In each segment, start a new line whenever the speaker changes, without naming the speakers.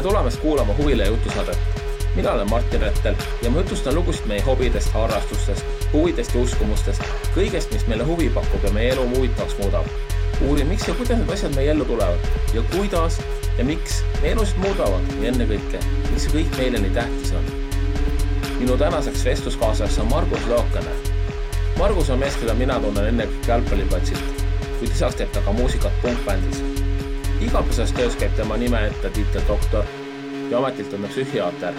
Tere tulemast kuulama Huvile jutusaadet. Mina olen Martin Rettel ja ma jutustan lugusid meie hobidest, harrastustest, huvidest ja uskumustest, kõigest, mis meile huvi pakub ja meie elu huvitavaks muudab. Uurin, miks ja kuidas need asjad meie ellu tulevad ja kuidas ja miks meie elusid muudavad ja ennekõike, mis see kõik meile nii tähtis on. Minu tänaseks vestluskaaslaseks on Margus Lookane. Margus on mees, keda mina tunnen ennekõike jalgpalliplatsilt, kuid lisaks teeb ta ka muusikat punkbändis. Igapäevases töös käib tema nime ette tiitel doktor ja ametilt on ta psühhiaater.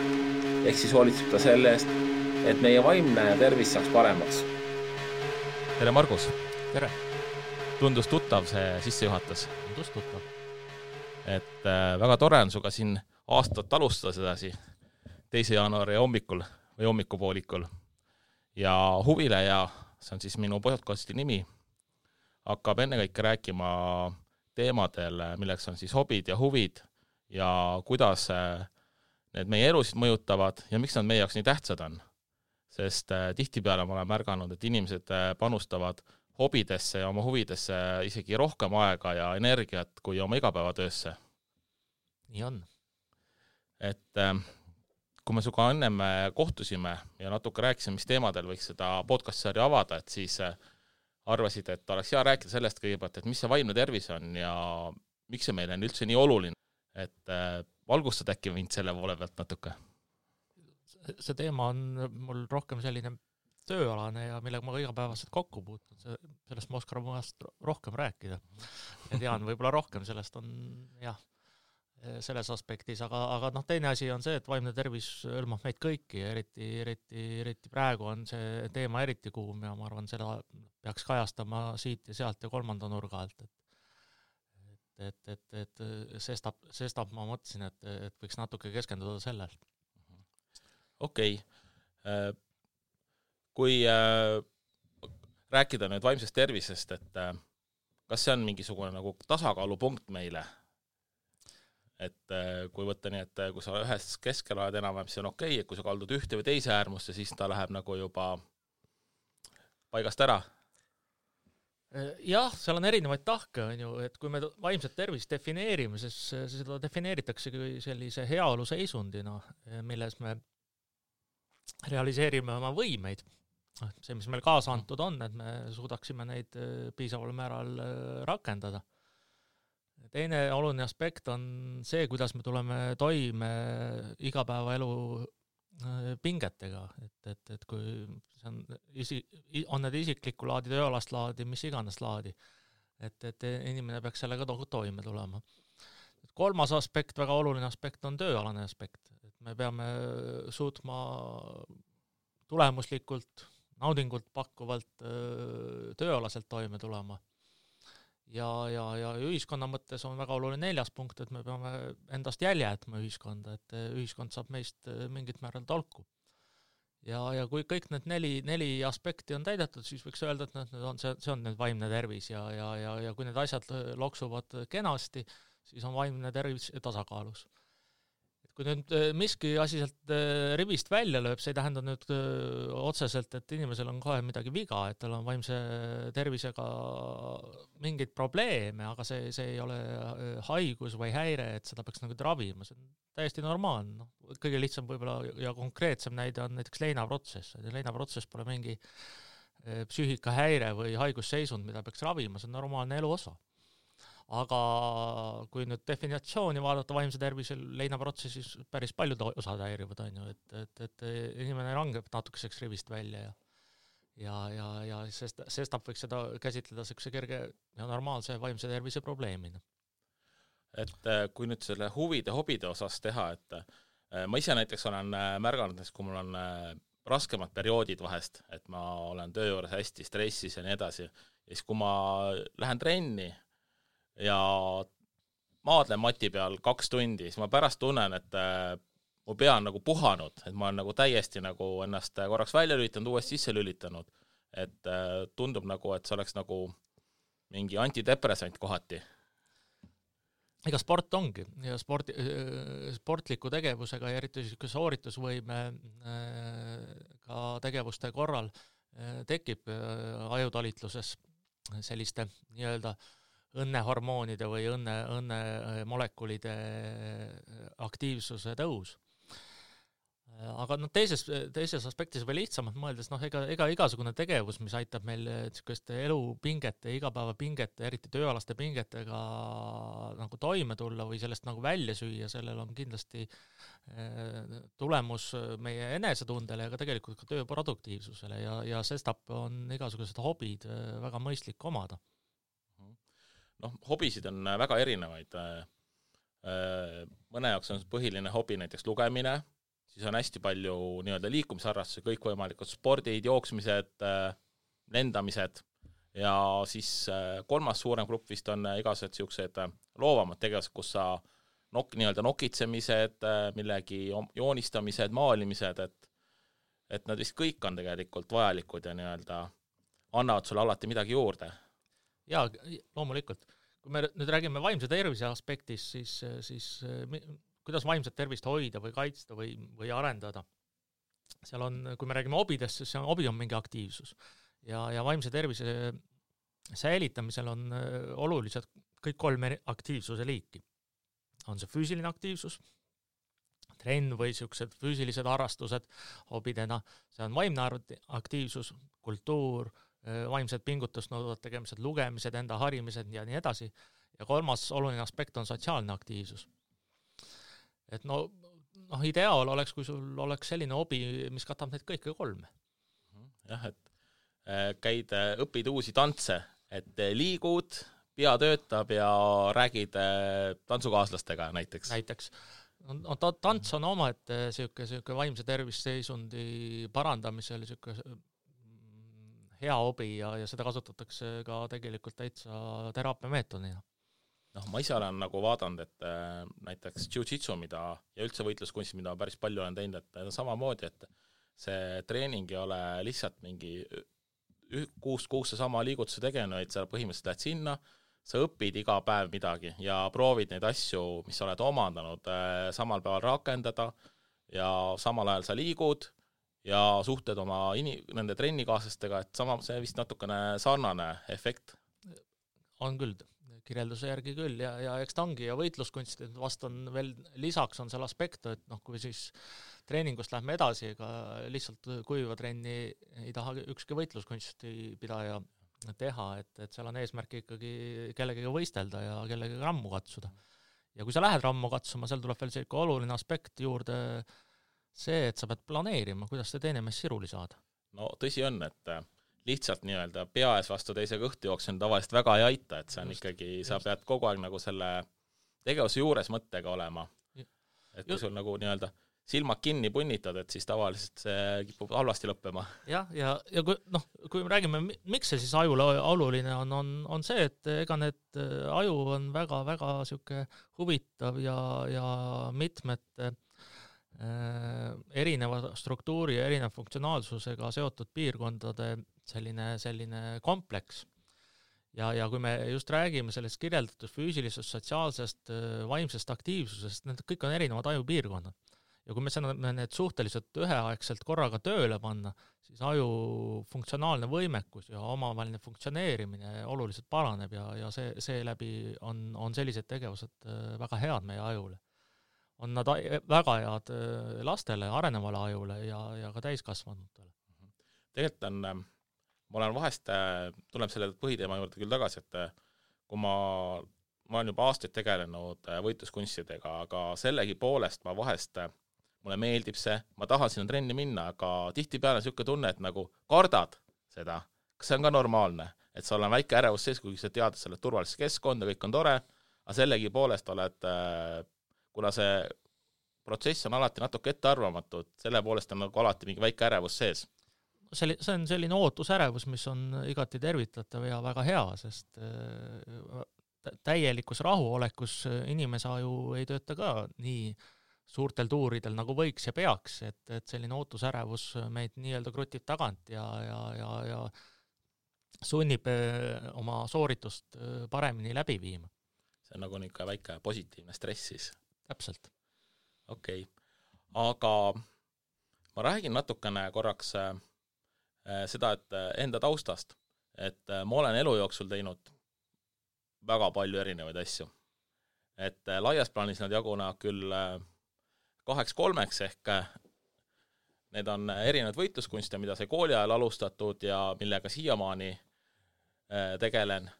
Ehk siis hoolitseb ta selle eest, et meie vaimne tervis saaks paremaks.
Tere Margus!
Tere!
Tundus tuttav see sissejuhatus.
Tundus tuttav.
Et väga tore on suga siin aastat alustada sedasi 2. jaanuari hommikul või hommikupoolikul. Ja Huvile ja see on siis minu podcasti nimi, hakkab ennekõike rääkima teemadel, milleks on siis hobid ja huvid ja kuidas need meie elusid mõjutavad ja miks nad meie jaoks nii tähtsad on. Sest tihtipeale ma olen märganud, et inimesed panustavad hobidesse ja oma huvidesse isegi rohkem aega ja energiat kui oma igapäevatöösse.
Nii on.
Et kui me suga ennem kohtusime ja natuke rääkisime, mis teemadel võiks seda podcast-sarja avada, et siis arvasid, et oleks hea rääkida sellest kõigepealt, et mis see vaimne tervis on ja miks see meile on üldse nii oluline. Et valgustad äkki mind selle poole pealt natuke?
See teema on mul rohkem selline tööalane ja millega ma igapäevaselt kokku puutun. Sellest ma oskan rohkem rääkida. Ja tean võib-olla rohkem, sellest on jah, selles aspektis, aga teine asi on see, et vaimne tervis hõlmab meid kõiki ja eriti praegu on see teema eriti kuum ja ma arvan, seda peaks kajastama siit ja sealt ja kolmanda nurga alt. Et sestap ma mõtlesin, et võiks natuke keskenduda sellel.
Okei. Kui rääkida nüüd vaimsest tervisest, et kas see on mingisugune nagu tasakaalupunkt meile? Et kui võtta nii, et kui sa ühes keskel oled enam-vähem, siis on okei, et kui sa kaldud ühte või teise äärmusse, siis ta läheb nagu juba paigast ära.
Jah, seal on erinevaid tahke, on ju, et kui me vaimset tervist defineerime, siis seda defineeritakse sellise heaolu seisundina, milles me realiseerime oma võimeid. See, mis meil kaasa antud on, et me suudaksime neid piisaval määral rakendada. Teine oluline aspekt on see, kuidas me tuleme toime igapäevaelu pingetega, et kui see on need isiklikku laadi, tööalast laadi, mis iganes laadi, et inimene peaks sellega toime tulema. Kolmas aspekt, väga oluline aspekt on tööalane aspekt, et me peame suutma tulemuslikult, naudingult pakkuvalt tööalaselt toime tulema. Ja ühiskonna mõttes on väga oluline 4. punkt, et me peame endast jälje jätma ühiskonda, et ühiskond saab meist mingit määral tolku. Ja kui kõik need neli aspekti on täidetud, siis võiks öelda, et see on need vaimne tervis ja kui need asjad loksuvad kenasti, siis on vaimne tervis tasakaalus. Kui nüüd miski asi sealt rivist välja lööb, see ei tähenda nüüd otseselt, et inimesel on kohe midagi viga, et tal on vaimse tervisega mingeid probleeme, aga see ei ole haigus või häire, et seda peaks nagu ravima. See on täiesti normaalne. Kõige lihtsam võib-olla ja konkreetsem näide on näiteks leinaprotsess. Leinaprotsess pole mingi psüühikahäire või haigusseisund, mida peaks ravima, see on normaalne elu osa. Aga kui nüüd definitsiooni vaadata vaimse tervisel leinaprotsessis päris paljud osad häirivad, on ju, et inimene langeb natukeseks rivist välja ja sestap võiks seda käsitleda sellise kerge ja normaalse vaimse tervise probleemina.
Et kui nüüd selle huvide, hobide osas teha, et ma ise näiteks olen märganud, kui mul on raskemad perioodid vahest, et ma olen töö juures hästi stressis ja nii edasi, ja siis kui ma lähen trenni ja maadlen mati peal 2 tundi, siis ma pärast tunnen, et mu pea on nagu puhanud, et ma olen nagu täiesti nagu ennast korraks välja lülitanud, uuesti sisse lülitanud, et tundub nagu, et see oleks nagu mingi antidepressant kohati.
Ega sport ongi ja sportliku tegevusega ja eriti sooritusvõime ka tegevuste korral tekib ajutalitluses selliste nii-öelda õnnehormoonide või õnne molekulide aktiivsuse tõus. Aga teises aspektis veel lihtsamalt mõeldes, ega igasugune tegevus, mis aitab meil niisuguste elupingete, igapäevapingete, eriti tööalaste pingetega nagu toime tulla või sellest nagu välja süüa, sellel on kindlasti tulemus meie enesetundele ja ka tegelikult ka töö produktiivsusele ja sestap on igasugused hobid väga mõistlik omada.
Hobisid on väga erinevaid. Mõne jaoks on põhiline hobi näiteks lugemine, siis on hästi palju nii-öelda liikumisharrastusi, kõikvõimalikud spordid, jooksmised, lendamised ja siis kolmas suurem grupp vist on igased siuksed loovamad tegevused, kus sa nii-öelda nokitsemised, millegi joonistamised, maalimised, et nad vist kõik on tegelikult vajalikud ja nii-öelda annavad sulle alati midagi juurde.
Jaa, loomulikult. Kui me nüüd räägime vaimse tervise aspektis, siis kuidas vaimset tervist hoida või kaitsta või arendada. Seal on, kui me räägime hobidest, siis hobi on mingi aktiivsus. Ja vaimse tervise säilitamisel on olulised kõik 3 aktiivsuse liiki. On see füüsiline aktiivsus, trenn või siuksed füüsilised harrastused hobidena, see on vaimne aktiivsus, kultuur, vaimsed pingutust nõuvad tegemised, lugemised, enda harimised ja nii edasi. Ja 3. oluline aspekt on sotsiaalne aktiivsus. Et ideaal oleks, kui sul oleks selline hobi, mis katab neid kõike 3.
Jah, et õpid uusi tantse, et liigud, pea töötab ja räägid tantsukaaslastega näiteks.
Tants on oma, et siuke vaimse tervisseisundi parandamisel siuke hea hobi ja seda kasutatakse ka tegelikult täitsa teraapiameetodina.
Ma ise olen nagu vaadanud, et näiteks jiu-jitsu, ja üldse võitluskunst, mida päris palju olen teinud, et samamoodi, et see treening ei ole lihtsalt mingi 6 kuusse sama liigutuse tegenu, et sa põhimõtteliselt lähed sinna, sa õpid iga päev midagi ja proovid neid asju, mis sa oled omandanud, samal päeval rakendada ja samal ajal sa liigud ja suhted oma nende trennikaaslastega, et see vist natukene sarnane efekt.
On küll, kirjelduse järgi küll ja eks ta ongi ja võitluskunst, et vast on veel lisaks on seal aspekt, et kui siis treeningust lähme edasi, ega lihtsalt kuiva trenni ei taha ükski võitluskunsti pidaja teha, et seal on eesmärk ikkagi kellegagi võistelda ja kellegagi rammu katsuda. Ja kui sa lähed rammu katsuma, seal tuleb veel selline oluline aspekt juurde see, et sa pead planeerima, kuidas see teine mees siruli saada.
Tõsi on, et lihtsalt nii-öelda pea ees vastu teise kõhtu jooksen tavaliselt väga ei aita, et see on ikkagi, sa pead kogu aeg nagu selle tegevuse juures mõttega olema. Et kui sul nagu nii-öelda silmad kinni punnitad, et siis tavaliselt see kipub halvasti lõppema.
Ja kui me räägime, miks see siis ajule oluline on see, et ega need aju on väga-väga siuke huvitav ja mitmete erineva struktuuri ja erineva funktsionaalsusega seotud piirkondade selline kompleks. Ja kui me just räägime sellest kirjeldatud füüsilisest, sotsiaalsest, vaimsest aktiivsusest, need kõik on erinevad ajupiirkonnad. Ja kui me saame need suhteliselt üheaegselt korraga tööle panna, siis aju funktsionaalne võimekus ja omavaheline funktsioneerimine oluliselt paraneb ja see läbi on sellised tegevused väga head meie ajule. On nad väga head lastele, arenevale ajule ja ka täiskasvanutele.
Tegelikult ma olen vahest, tuleb selle põhiteema juurde küll tagasi, et kui ma olen juba aastaid tegelenud võitluskunstidega, aga sellegi poolest ma vahest, mulle meeldib see, ma tahan sinna trenni minna, aga tihtipeale niisugune tunne, et nagu kardad seda. Kas see on ka normaalne? Et sa olen väike ärevus sees, kui sa tead, et sa oled turvalises keskkonda, kõik on tore, aga sellegi poolest oled kuna see protsess on alati natuke ettearvamatud, selle poolest on nagu alati mingi väike ärevus sees.
See on selline ootusärevus, mis on igati tervitatav ja väga hea, sest täielikus rahuolekus inimese aju ei tööta ka nii suurtel tuuridel nagu võiks ja peaks, et selline ootusärevus meid nii-öelda krutib tagant ja sunnib oma sooritust paremini läbi viima.
See on nagu niisugune väike positiivne stress siis.
Täpselt.
Okei. Aga ma räägin natukene korraks seda, et enda taustast, et ma olen elu jooksul teinud väga palju erinevaid asju. Et laias plaanis nad jagunevad küll 2-3 ehk need on erinevad võitluskunste, mida sai kooli ajal alustatud ja millega siiamaani tegelen.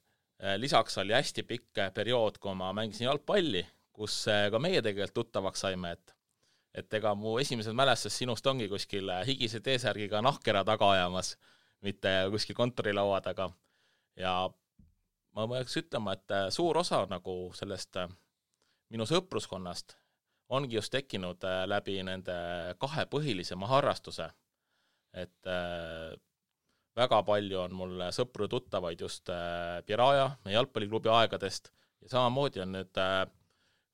Lisaks oli hästi pikk periood, kui ma mängisin jalgpalli, kus ka meie tegelikult tuttavaks saime, et ega mu esimesed mälestus sinust ongi kuskil higise T-särgiga nahkera taga ajamas, mitte kuskil kontorilaua taga. Ja ma võiks ütlema, et suur osa nagu sellest minu sõpruskonnast ongi just tekkinud läbi nende 2 põhilisema harrastuse. Et väga palju on mul sõpru tuttavaid just Piraja, meie jalgpalliklubi aegadest ja samamoodi on nüüd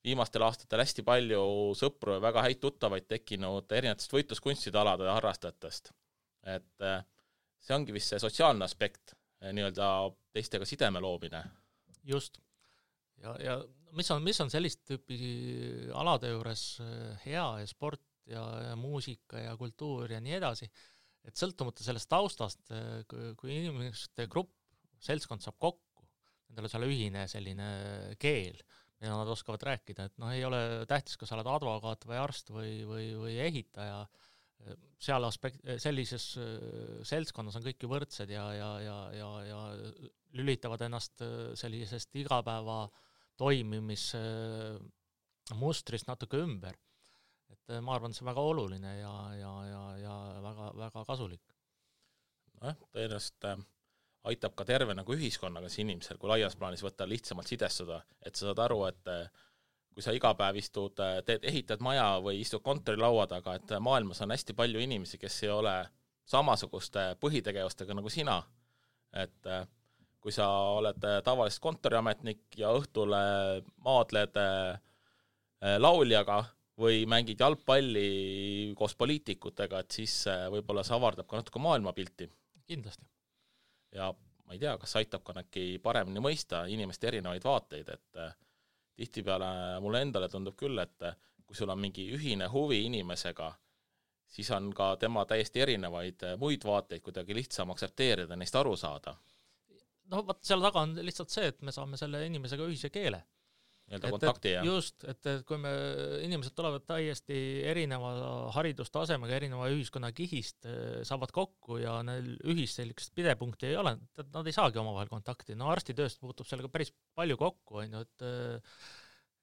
viimastel aastatel hästi palju sõpru ja väga häid tuttavaid tekkinud erinevatest võitluskunstide alade ja harrastajatest. Et see ongi vist see sotsiaalne aspekt, nii-öelda teistega sideme loomine.
Just. Ja mis on sellist tüüpi alade juures hea ja sport ja muusika ja kultuur ja nii edasi, et sõltumata sellest taustast, kui inimeste grupp, seltskond saab kokku, nendel on seal ühine selline keel, mida nad oskavad rääkida, et ei ole tähtis, kas sa oled advokaat või arst või ehitaja, seal sellises seltskonnas on kõik ju võrdsed ja lülitavad ennast sellisest igapäeva toimimis mustrist natuke ümber. Et ma arvan, see on väga oluline ja väga, väga kasulik.
Tõenäoliselt aitab ka terve nagu ühiskonnaga see inimesel, kui laias plaanis võtta lihtsamalt sidestuda, et sa saad aru, et kui sa iga päev istud, ehitad maja või istud kontorilaua taga, et maailmas on hästi palju inimesi, kes ei ole samasuguste põhitegevustega nagu sina. Et kui sa oled tavaliselt kontoriametnik ja õhtule maadled lauljaga või mängid jalgpalli koos poliitikutega, et siis võib-olla see avardab ka natuke maailmapilti.
Kindlasti.
Ja ma ei tea, kas aitab ka näki paremini mõista inimeste erinevaid vaateid, et tihtipeale mulle endale tundub küll, et kui sul on mingi ühine huvi inimesega, siis on ka tema täiesti erinevaid muid vaateid kuidagi lihtsam aktsepteerida, neist aru saada.
Vaat seal taga on lihtsalt see, et me saame selle inimesega ühise keele.
Kontakti,
just, et kui inimesed tulevad täiesti erineva haridustasemega, erineva ühiskonna kihist, saavad kokku ja neil ühist sellist pidepunkti ei ole, nad ei saagi omavahel kontakti. Arstitööst puutub sellega päris palju kokku,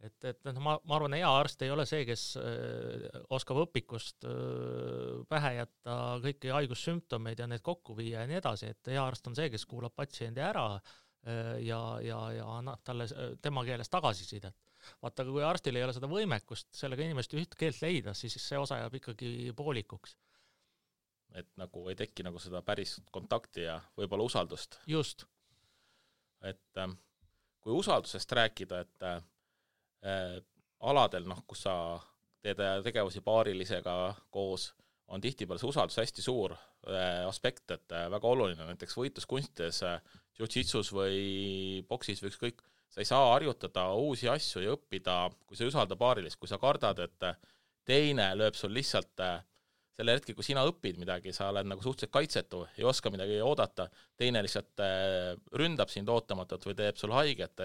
et ma arvan, hea arst ei ole see, kes oskab õpikust pähe jätta kõiki haigussümptomeid ja need kokku viia ja nii edasi, et hea arst on see, kes kuulab patsiendi ära ja annab talle tema keeles tagasisidet. Vaata, kui arstil ei ole seda võimekust sellega inimest üht keelt leida, siis see osa jääb ikkagi poolikuks.
Et nagu ei teki nagu seda päris kontakti ja võib-olla usaldust.
Just.
Et kui usaldusest rääkida, et aladel, kus sa teed tegevusi paarilisega koos, on tihtipeale see usaldus hästi suur aspekt, et väga oluline, näiteks võitluskunstides, jiu-jitsus või boksis või ükskõik, sa ei saa harjutada uusi asju ja õppida, kui sa ei usalda paarilist, kui sa kardad, et teine lööb sul lihtsalt selle hetki, kui sina õpid midagi, sa oled nagu suhteliselt kaitsetu, ei oska midagi oodata, teine lihtsalt ründab sind ootamatult või teeb sul haiget,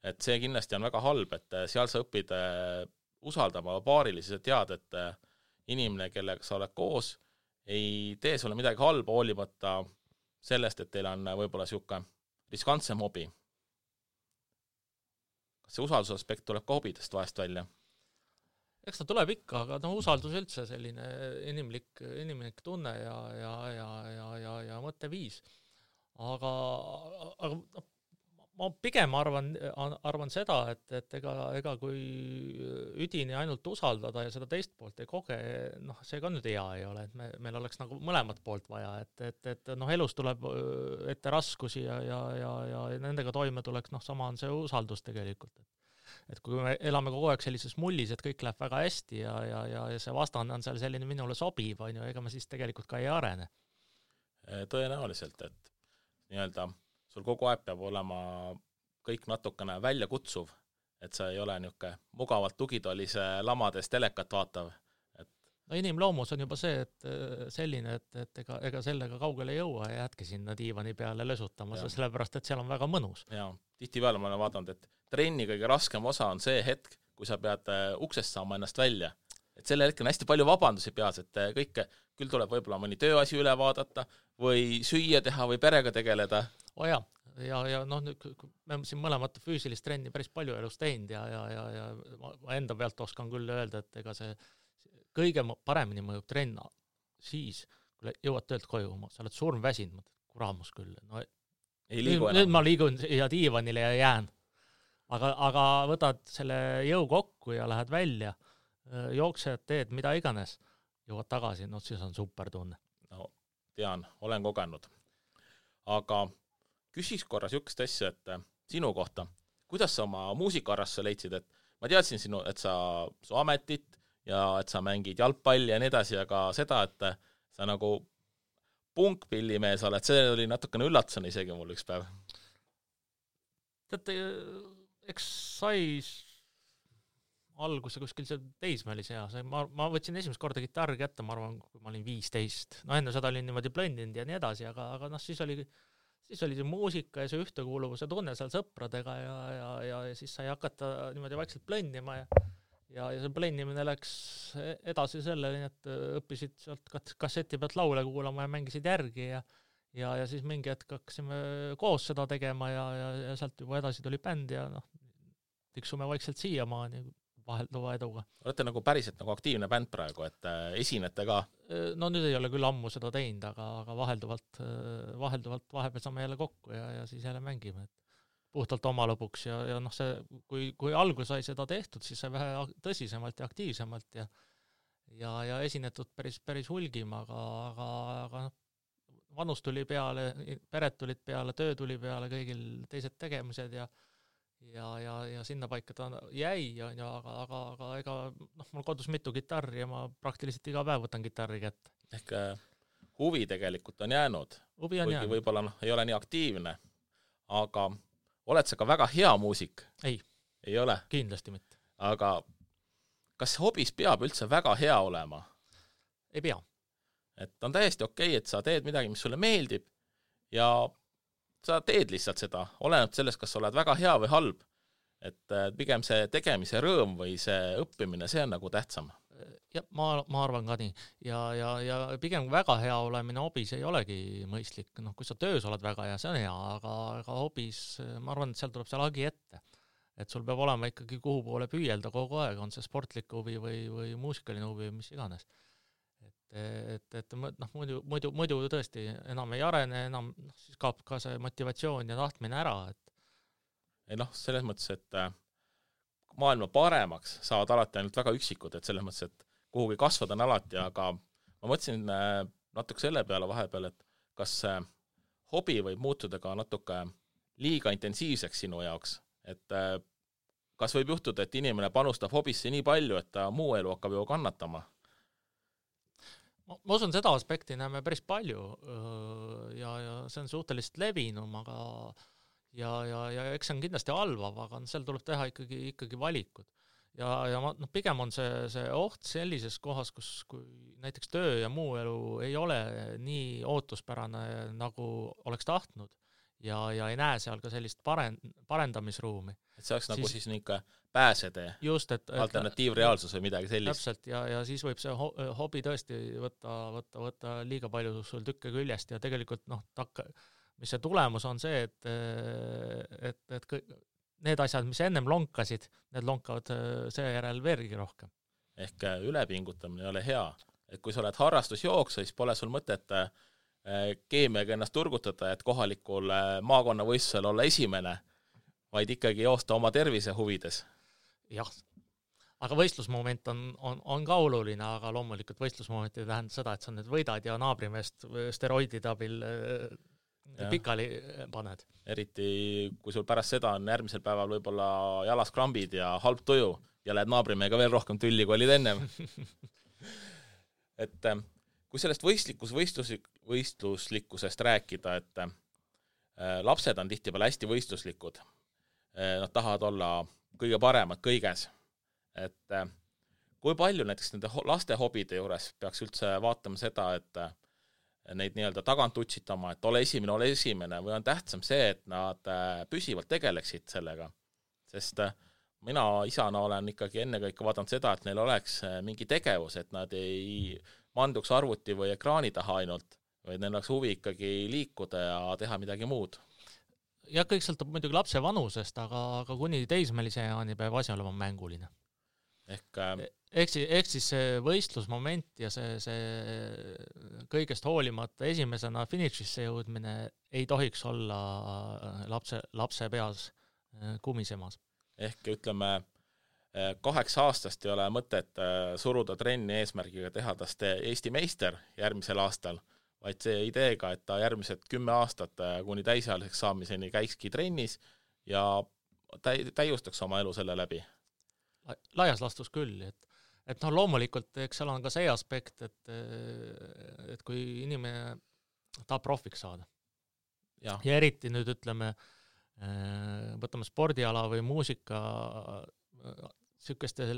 et see kindlasti on väga halb, et seal sa õpid usaldama paarilisi, sa tead, et inimene, kellega sa oled koos, ei tee sulle midagi halba, hoolimata sellest, et teil on võib-olla siuke riskantsem hobi. Kas see usaldusaspekt tuleb ka hobidest vahest välja?
Eks ta tuleb ikka, aga usaldus üldse selline inimlik tunne ja mõtteviis. Aga ma pigem arvan seda, et ega kui üdini ainult usaldada ja seda teist poolt ei koge, see ka nüüd hea ei ole, et meil oleks nagu mõlemat poolt vaja, et elus tuleb ette raskusi ja nendega toime tuleks, sama on see usaldus tegelikult. Et kui me elame kogu aeg sellises mullis, et kõik läheb väga hästi ja see vastane on seal selline minule sobiv, ega me siis tegelikult ka ei arene.
Tõenäoliselt, et nii-öelda sul kogu aeg peab olema kõik natukene välja kutsuv, et sa ei ole niuke mugavalt tugitolise lamades telekat vaatav.
Inimloomus on juba see, et selline, et ega sellega kaugele ei jõua ja jätke sinna diivani peale lösutama, sellepärast, et seal on väga mõnus.
Jaa, tihtipeale ma olen vaadanud, et trenni kõige raskem osa on see hetk, kui sa pead uksest saama ennast välja. Et selle hetkel on hästi palju vabandusi peas, et kõike, küll tuleb võib-olla mõni tööasi üle vaadata või süüa teha või perega tegeleda.
Ja noh, me siin mõlemat füüsilist trenni päris palju elus teinud ja ma enda pealt oskan küll öelda, et ega see kõige paremini mõjub trenn siis, kui jõuad töölt koju, sa oled surmväsinud, kuramus küll. No,
ei liigu
nüüd ma liigun ja diivanile ja jään. Aga võtad selle jõu kokku ja lähed välja, jooksed, teed mida iganes, jõuad tagasi, no siis on super tunne.
No, tean, olen kogenud. Aga küsis korra sükest asja, et sinu kohta, kuidas sa oma muusikaarrasse leidsid, et ma teadsin sinu, et su ametit ja et sa mängid jalgpalli ja nii edasi, aga seda, et sa nagu punkpillimees oled, see oli natukene üllatusena isegi mul üks päev.
Teate, eks sai alguse kuskil see teismelis hea. Ma võtsin esimest korda kitarri kätte, ma arvan, kui ma olin 15. No enne seda olin niimoodi blondinud ja nii edasi, aga noh, siis oli see muusika ja see ühtekuuluvuse tunne seal sõpradega ja siis sai hakata niimoodi vaikselt blendima ja see blendimine läks edasi selleni, et õppisid sealt kasseti pealt laule kuulama ja mängisid järgi ja siis mingi hetk hakkasime koos seda tegema ja sealt juba edasi tuli bänd ja noh, tiksume vaikselt siiamaani vahelduva eduga.
Olete nagu päriselt nagu aktiivne bänd praegu, et esinete ka?
No nüüd ei ole küll ammu seda teinud, aga vahelduvalt vahepeal saame jälle kokku ja siis jälle mängime. Puhtalt oma lõpuks ja noh, see, kui algus sai seda tehtud, siis sai vähe tõsisemalt ja aktiivsemalt ja esinetud päris hulgim, aga vanus tuli peale, pered tulid peale, töö tuli peale, kõigil teised tegemised ja sinna paika ta jäi, aga ega noh, mul kodus mitu kitarri ja ma praktiliselt iga päev võtan kitarri kätte.
Ehk huvi tegelikult on jäänud.
Huvi on jäänud.
Võib-olla ei ole nii aktiivne, aga oled sa ka väga hea muusik? Ei ole?
Kindlasti mitte.
Aga kas hobis peab üldse väga hea olema?
Ei pea.
Et on täiesti okei, et sa teed midagi, mis sulle meeldib ja sa teed lihtsalt seda, oleneb sellest, kas sa oled väga hea või halb. Et pigem see tegemise rõõm või see õppimine, see on nagu tähtsam.
Ja ma arvan ka nii. Ja pigem väga hea olemine hobis ei olegi mõistlik. No, kui sa töös oled väga hea, see on hea, aga hobis, ma arvan, et seal tuleb see lagi ette. Et sul peab olema ikkagi kuhu poole püüelda kogu aeg, on see sportlik huvi või muusikaline huvi või mis iganes. Et noh, muidu tõesti enam ei arene, enam siis kaob ka see motivatsioon ja tahtmine ära.
Ei noh, selles mõttes, et maailma paremaks saavad alati ainult väga üksikud, et selles mõttes, et kuhugi kasvada on alati, aga ma mõtlesin natuke selle peale vahepeal, et kas hobi võib muutuda ka natuke liiga intensiivseks sinu jaoks, et kas võib juhtuda, et inimene panustab hobisse nii palju, et ta muu elu hakkab ju kannatama?
Ma usun, seda aspekti näeme päris palju ja see on suhteliselt levinum, aga ja eks see on kindlasti halvav, aga seal tuleb teha ikkagi valikud. Ja pigem on see oht sellises kohas, kui näiteks töö ja muu elu ei ole nii ootuspärane, nagu oleks tahtnud ja ei näe seal ka sellist parendamisruumi. Et
see oleks nagu siis niisugune pääsetee, alternatiivreaalsus või midagi sellist.
Täpselt, ja siis võib see hobi tõesti võtta liiga palju sul tükke küljest ja tegelikult mis see tulemus on see, et need asjad, mis ennem lonkasid, need lonkavad seejärel veelgi rohkem.
Ehk ülepingutamine ei ole hea. Et kui sa oled harrastusjooksa, siis pole sul mõtet keemiaga ennast turgutada, et kohalikul maakonnavõistlusel olla esimene, vaid ikkagi joosta oma tervise huvides.
Jah, aga võistlusmoment on ka oluline, aga loomulikult võistlusmoment ei tähenda seda, et sa nüüd võidad ja naabrimeest steroidide abil pikali paned. Eriti,
kui sul pärast seda on järgmisel päeval võib-olla jalas krambid ja halb tuju ja lähed naabrimehega veel rohkem tülli, kui olid ennem. Et kui sellest võistluslikkusest rääkida, et lapsed on tihtipeale hästi võistluslikud. Nad tahavad olla kõige paremad kõiges. Et kui palju näiteks nende laste hobide juures peaks üldse vaatama seda, et neid nii-öelda tagant utsitama, et ole esimene, või on tähtsam see, et nad püsivalt tegeleksid sellega, sest mina isana olen ikkagi ennekõike vaadanud seda, et neil oleks mingi tegevus, et nad ei manduks arvuti või ekraani taha ainult, vaid neil oleks huvi ikkagi liikuda ja teha midagi muud.
Ja kõik sõltub muidugi lapse vanusest, aga kuni teismelise jaani peab asi olema mänguline. Ehk siis see võistlusmoment ja see kõigest hoolimata esimesena finišisse jõudmine ei tohiks olla lapse peas kumisemas.
Ehk ütleme, 8 aastast ei ole mõtet suruda trenni eesmärgiga teha tast Eesti meister järgmisel aastal, vaid see ideega, et ta järgmised 10 aastat kuni täisealiseks saamiseni käikski trennis ja täiustaks oma elu selle läbi.
Laias lastus küll, et loomulikult, eks seal on ka see aspekt, et kui inimene tahab profiks saada ja eriti nüüd ütleme, võtame spordiala või muusika sihukestes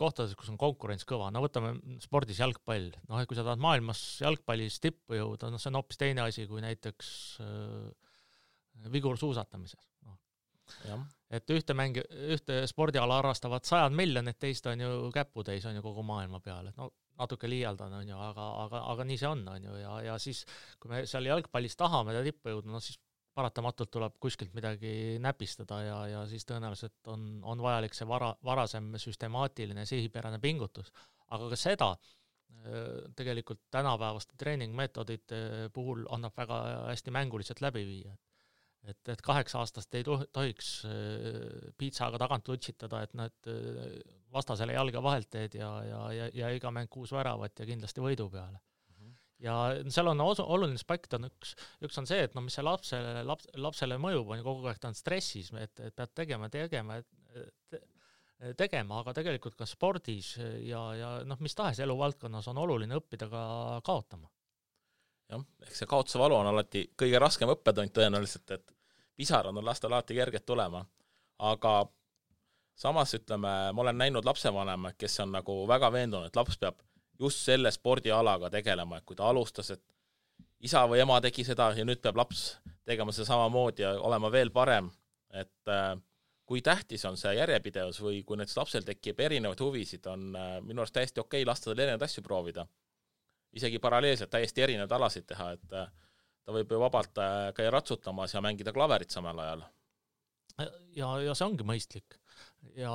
kohtades, kus on konkurents kõva, võtame spordis jalgpall, et kui sa tahad maailmas jalgpallis tippu jõuda, see on hoopis teine asi kui näiteks vigursuusatamises. Et ühte spordiala harrastavad 100 miljonit, teist on ju käputäis on ju kogu maailma peal, et natuke liialdan on ju, aga nii see on ju, ja siis kui me seal jalgpallis tahame tippu jõuda, siis paratamatult tuleb kuskilt midagi näpistada ja siis tõenäoliselt on vajalik see varasem süstemaatiline sihipärane pingutus. Aga ka seda tegelikult tänapäevaste treeningmeetodite puhul annab väga hästi mänguliselt läbi viia. Et 8 aastast ei tohiks piitsaga tagant lutsitada, et nad vastasele jalga vahelt teed ja iga mäng 6 väravat ja kindlasti võidu peale. Ja seal on oluline aspekt, üks on see, et mis see lapsele mõjub, on kogu aeg ta on stressis, et pead tegema, aga tegelikult ka spordis ja mis tahes eluvaldkonnas on oluline õppida ka kaotama.
Jah, ehk see kaotuse valu on alati kõige raskem õppetund tõenäoliselt, et pisarad on lastel alati kerged tulema, aga samas ütleme, ma olen näinud lapsevanema, kes on nagu väga veendunud, et laps peab just selle spordialaga tegelema, et kui ta alustas, et isa või ema tegi seda ja nüüd peab laps tegema seda samamoodi ja olema veel parem, et kui tähtis on see järjepidevus või kui näiteks lapsel tekib erinevaid huvisid, on minu arust täiesti okei lasta tal erinevaid asju proovida. Isegi paralleelselt täiesti erinevaid alasid teha, et ta võib ju vabalt käia ratsutamas ja mängida klaverit samal ajal.
Ja see ongi mõistlik. Ja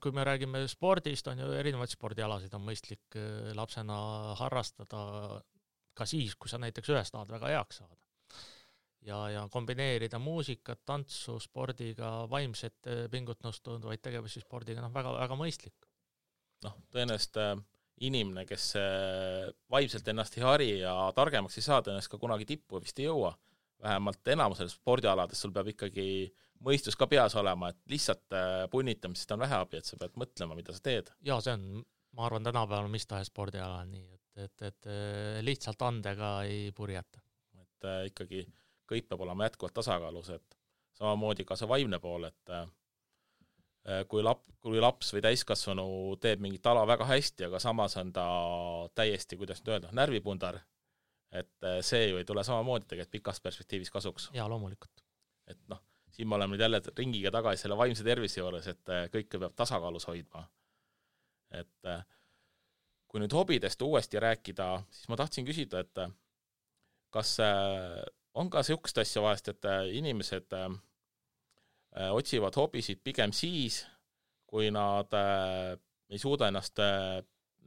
kui me räägime spordist, on ju erinevaid spordialasid on mõistlik lapsena harrastada ka siis, kui sa näiteks ühes tahad väga heaks saada. Ja kombineerida muusikat, tantsu, spordiga, vaimset pingutnust tundvaid tegevusi spordiga, väga, väga mõistlik.
Tõenäoliselt inimene, kes vaimselt ennast ei hari ja targemaks ei saa, tõenäoliselt ka kunagi tippu vist ei jõua. Vähemalt enamusel spordialades sul peab ikkagi mõistus ka peas olema, et lihtsalt punnitamisest on vähe abi, et sa pead mõtlema, mida sa teed.
Ja see on, ma arvan, tänapäeval mis tahes spordiala nii, et lihtsalt andega ei purjeta.
Et ikkagi kõik peab olema jätkuvalt tasakaalus, et samamoodi ka see vaimne pool, et kui laps või täiskasvanu teeb mingit ala väga hästi, aga samas on ta täiesti, kuidas nüüd öelda, närvipundar, et see ju ei tule samamoodi tegelikult pikas perspektiivis kasuks.
Ja loomulikult.
Et siin me oleme nüüd jälle ringiga tagasi selle vaimse tervise juures, et kõike peab tasakaalus hoidma. Et kui nüüd hobidest uuesti rääkida, siis ma tahtsin küsida, et kas on ka sihukest asja vahest, et inimesed otsivad hobisid pigem siis, kui nad ei suuda ennast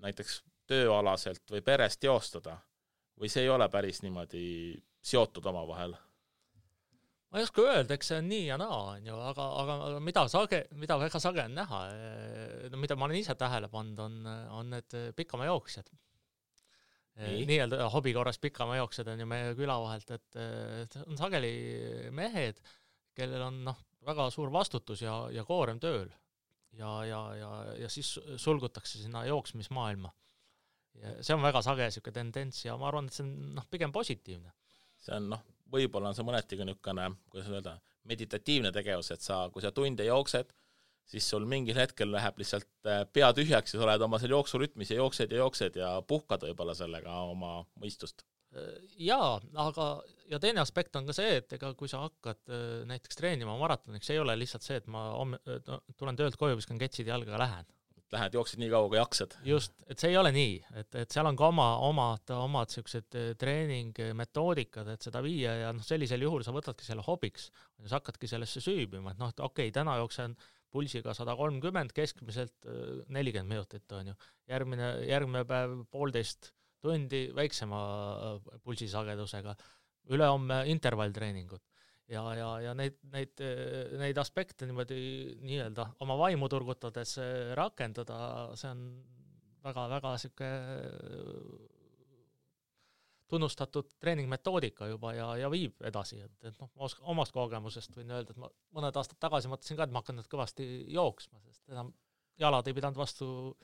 näiteks tööalaselt või perest teostada, või see ei ole päris niimoodi seotud oma vahel?
Ma ei oska öelda, eks see on nii ja naa, aga mida väga sage on näha, mida ma olen ise tähele pannud, on need pikama jooksjad. Nii-öelda hobikorras pikama jooksjad on ju meie küla vahelt, et on sageli mehed, kellel on väga suur vastutus ja koorem tööl ja siis sulgutakse sinna jooksmismaailma. Ja see on väga sage siuke tendents ja ma arvan, et see on pigem positiivne.
See on võib-olla on see mõnetiga niisugune, kuidas öelda, meditatiivne tegevus, et kui sa tunde jooksed, siis sul mingil hetkel läheb lihtsalt pea tühjaks ja sa oled oma seal jooksurütmis ja jooksed ja puhkad võib-olla sellega oma mõistust.
Jaa, aga ja teine aspekt on ka see, et ega kui sa hakkad näiteks treenima maratoniks, see ei ole lihtsalt see, et ma tulen töölt koju, viskan ketsid jalga ja lähen.
Lähed, jooksid nii kaua, kui jaksad.
Just, et see ei ole nii, et seal on ka omad sellised treeningmetoodikad, et seda viia ja sellisel juhul sa võtadki selle hobiks ja sa hakkadki sellesse süübima, et okei, täna jooksen pulsiga 130, keskmiselt 40 minutit on ju. Järgmine päev 1,5 tundi väiksema pulsisagedusega, ülehomme intervalltreeningud ja neid aspekte niimoodi nii-öelda oma vaimu turgutades rakendada, see on väga siuke tunnustatud treeningmetoodika juba ja viib edasi, et omast kogemusest võin öelda, et ma mõned aastad tagasi mõtlesin ka, et ma hakkan nüüd kõvasti jooksma, sest enam jalad ei pidanud vastu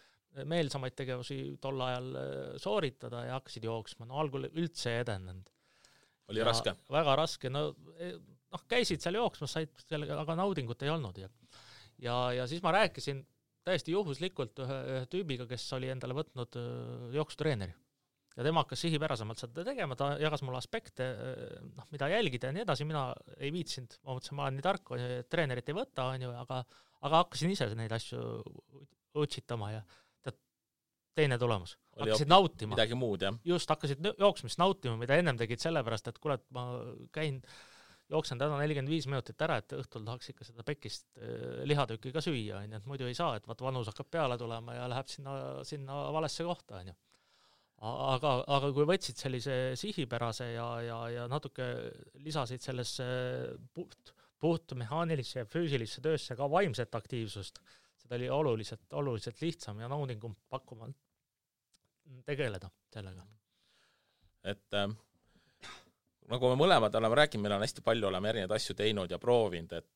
meelsamaid tegevusi tol ajal sooritada ja hakkasid jooksma. Algul üldse ei edenenud.
Oli raske?
Väga raske. Käisid seal jooksmas, said sellega, aga naudingut ei olnud. Ja siis ma rääkisin täiesti juhuslikult ühe tüübiga, kes oli endale võtnud jooksutreeneri. Ja tema hakkas sihipärasemalt seda tegema, ta jagas mulle aspekte, mida jälgida ja nii edasi, mina ei viitsinud, ma mõtlesin, ma olen nii tark, treenerit ei võta, aga hakkasin ise neid asju otsitama ja teine tulemus. Hakkasid nautima.
Midagi muud, jah.
Just, hakkasid jooksmist nautima, mida ennem tegid sellepärast, et kuule, ma jooksen täna 45 minutit ära, et õhtul tahaks ikka seda pekist lihatükki ka süüa, et muidu ei saa, et vanus hakkab peale tulema ja läheb sinna valesse kohta. Aga kui võtsid sellise sihipärase ja natuke lisasid sellesse puht mehaanilisse ja füüsilisse töösse ka vaimset aktiivsust, seda oli oluliselt lihtsam ja naudingum pakkuma tegeleda sellega.
Et nagu me mõlemad oleme rääkinud, meil on hästi palju, oleme erinevaid asju teinud ja proovinud, et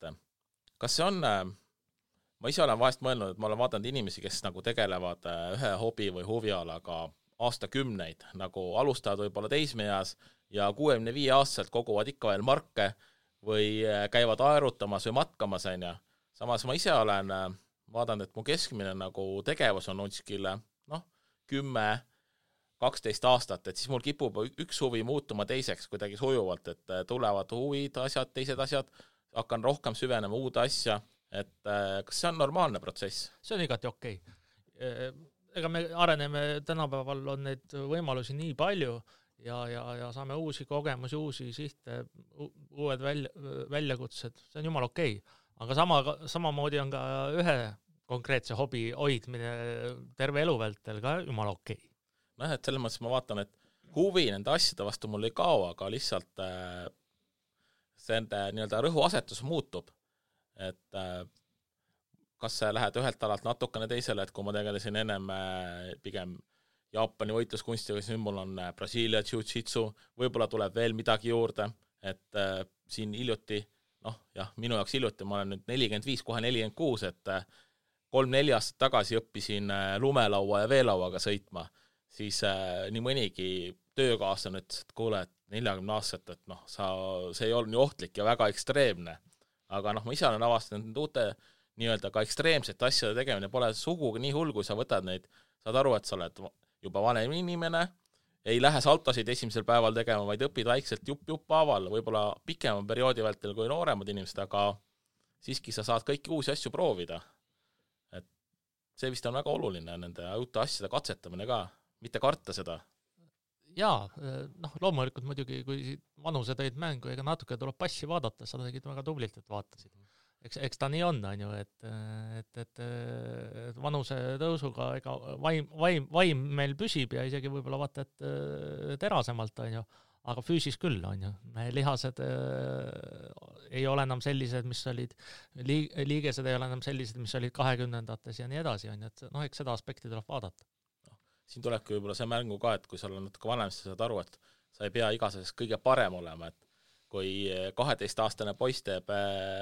kas see on, ma ise olen vahest mõelnud, et ma olen vaadanud inimesi, kes nagu tegelevad ühe hobi või huvialaga aastakümneid, nagu alustavad võib-olla teismeeas ja 65-aastaselt koguvad ikka veel marke või käivad aerutamas või matkamas, ja samas ma ise olen vaadanud, et mu keskmine nagu tegevus on kuskil 10-12 aastat, et siis mul kipub üks huvi muutuma teiseks kuidagi sujuvalt, et tulevad huvid, asjad, teised asjad, hakkan rohkem süvenema uude asja, et kas see on normaalne protsess?
See on igati okei. Ega me areneme, tänapäeval on neid võimalusi nii palju ja saame uusi kogemusi, uusi sihte, uued väljakutsed, see on jumal okei. Aga samamoodi on ka ühe konkreetse hobi hoidmine terve elu vältel ka jumal okei.
Et selles mõttes ma vaatan, et huvi nende asjade vastu mul ei kao, aga lihtsalt see nii-öelda rõhuasetus muutub. Et kas sa lähed ühelt alalt natukene teisele, et kui ma tegelesin ennem pigem Jaapani võitluskunstiga, siis mul on Brasiilia jiu-jitsu, võib-olla tuleb veel midagi juurde, et siin hiljuti, minu jaoks hiljuti, ma olen nüüd 45, kohe 46, et 3-4 aastat tagasi õppisin lumelaua ja veelauaga sõitma, siis nii mõnigi töökaaslane ütles, et kuule, et 40 aastat, et see ei olnud nii ohtlik ja väga ekstreemne. Aga ma ise olen avastanud need uute nii-öelda ka ekstreemsete asjade tegemine, pole sugugi nii hull, kui sa võtad neid, saad aru, et sa oled juba vanem inimene, ei lähe saltosid esimesel päeval tegema, vaid õpid väikselt jupp haaval, võib-olla pikema perioodi vältel kui nooremad inimesed, aga siiski sa saad kõiki uusi asju proovida. Et see vist on väga oluline, nende uute asjade katsetamine ka, mitte karta seda.
Jaa, loomulikult muidugi, kui vanuse tõid mängu, ega natuke tuleb passi vaadata, sa tegid väga tublilt, et vaatasid. Eks ta nii on ju, et vanuse tõusuga ega vaim meil püsib ja isegi võib-olla vaata, et terasemalt on ju, aga füüsis küll on ju. Lihased ei ole enam sellised, mis olid, liigesed ei ole enam sellised, mis olid 20-ndates ja nii edasi on ju, et eks seda aspekti tuleb vaadata.
Siin tulebki võib-olla see mängu ka, et kui sa oled natuke vanem, siis sa saad aru, et sa ei pea igasest kõige parem olema, et kui 12-aastane poiss teeb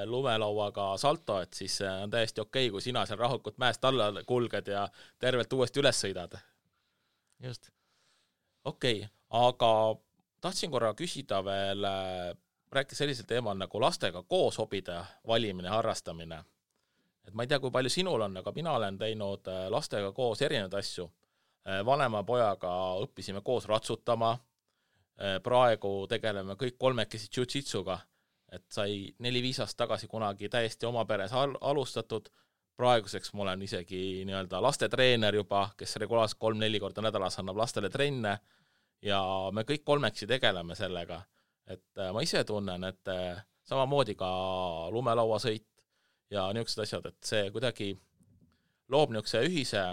lumelauaga salto, et siis on täiesti okei, kui sina seal rahulikult mäest alla kulged ja tervelt uuesti üles sõidad.
Just.
Okei, aga tahtsin korra küsida veel, rääkida sellisel teemal nagu lastega koos hobide valimine, harrastamine. et ma ei tea, kui palju sinul on, aga mina olen teinud lastega koos erinevaid asju. Vanema pojaga õppisime koos ratsutama, praegu tegeleme kõik kolmekesi jiu-jitsuga, et sai 4-5 aastat tagasi kunagi täiesti oma peres alustatud, praeguseks ma olen isegi nii-öelda lastetreener juba, kes regulaarselt 3-4 korda nädalas annab lastele trenne ja me kõik kolmeksi tegeleme sellega, et ma ise tunnen, et samamoodi ka lumelauasõit ja niisugused asjad, et see kuidagi loob niisuguse ühise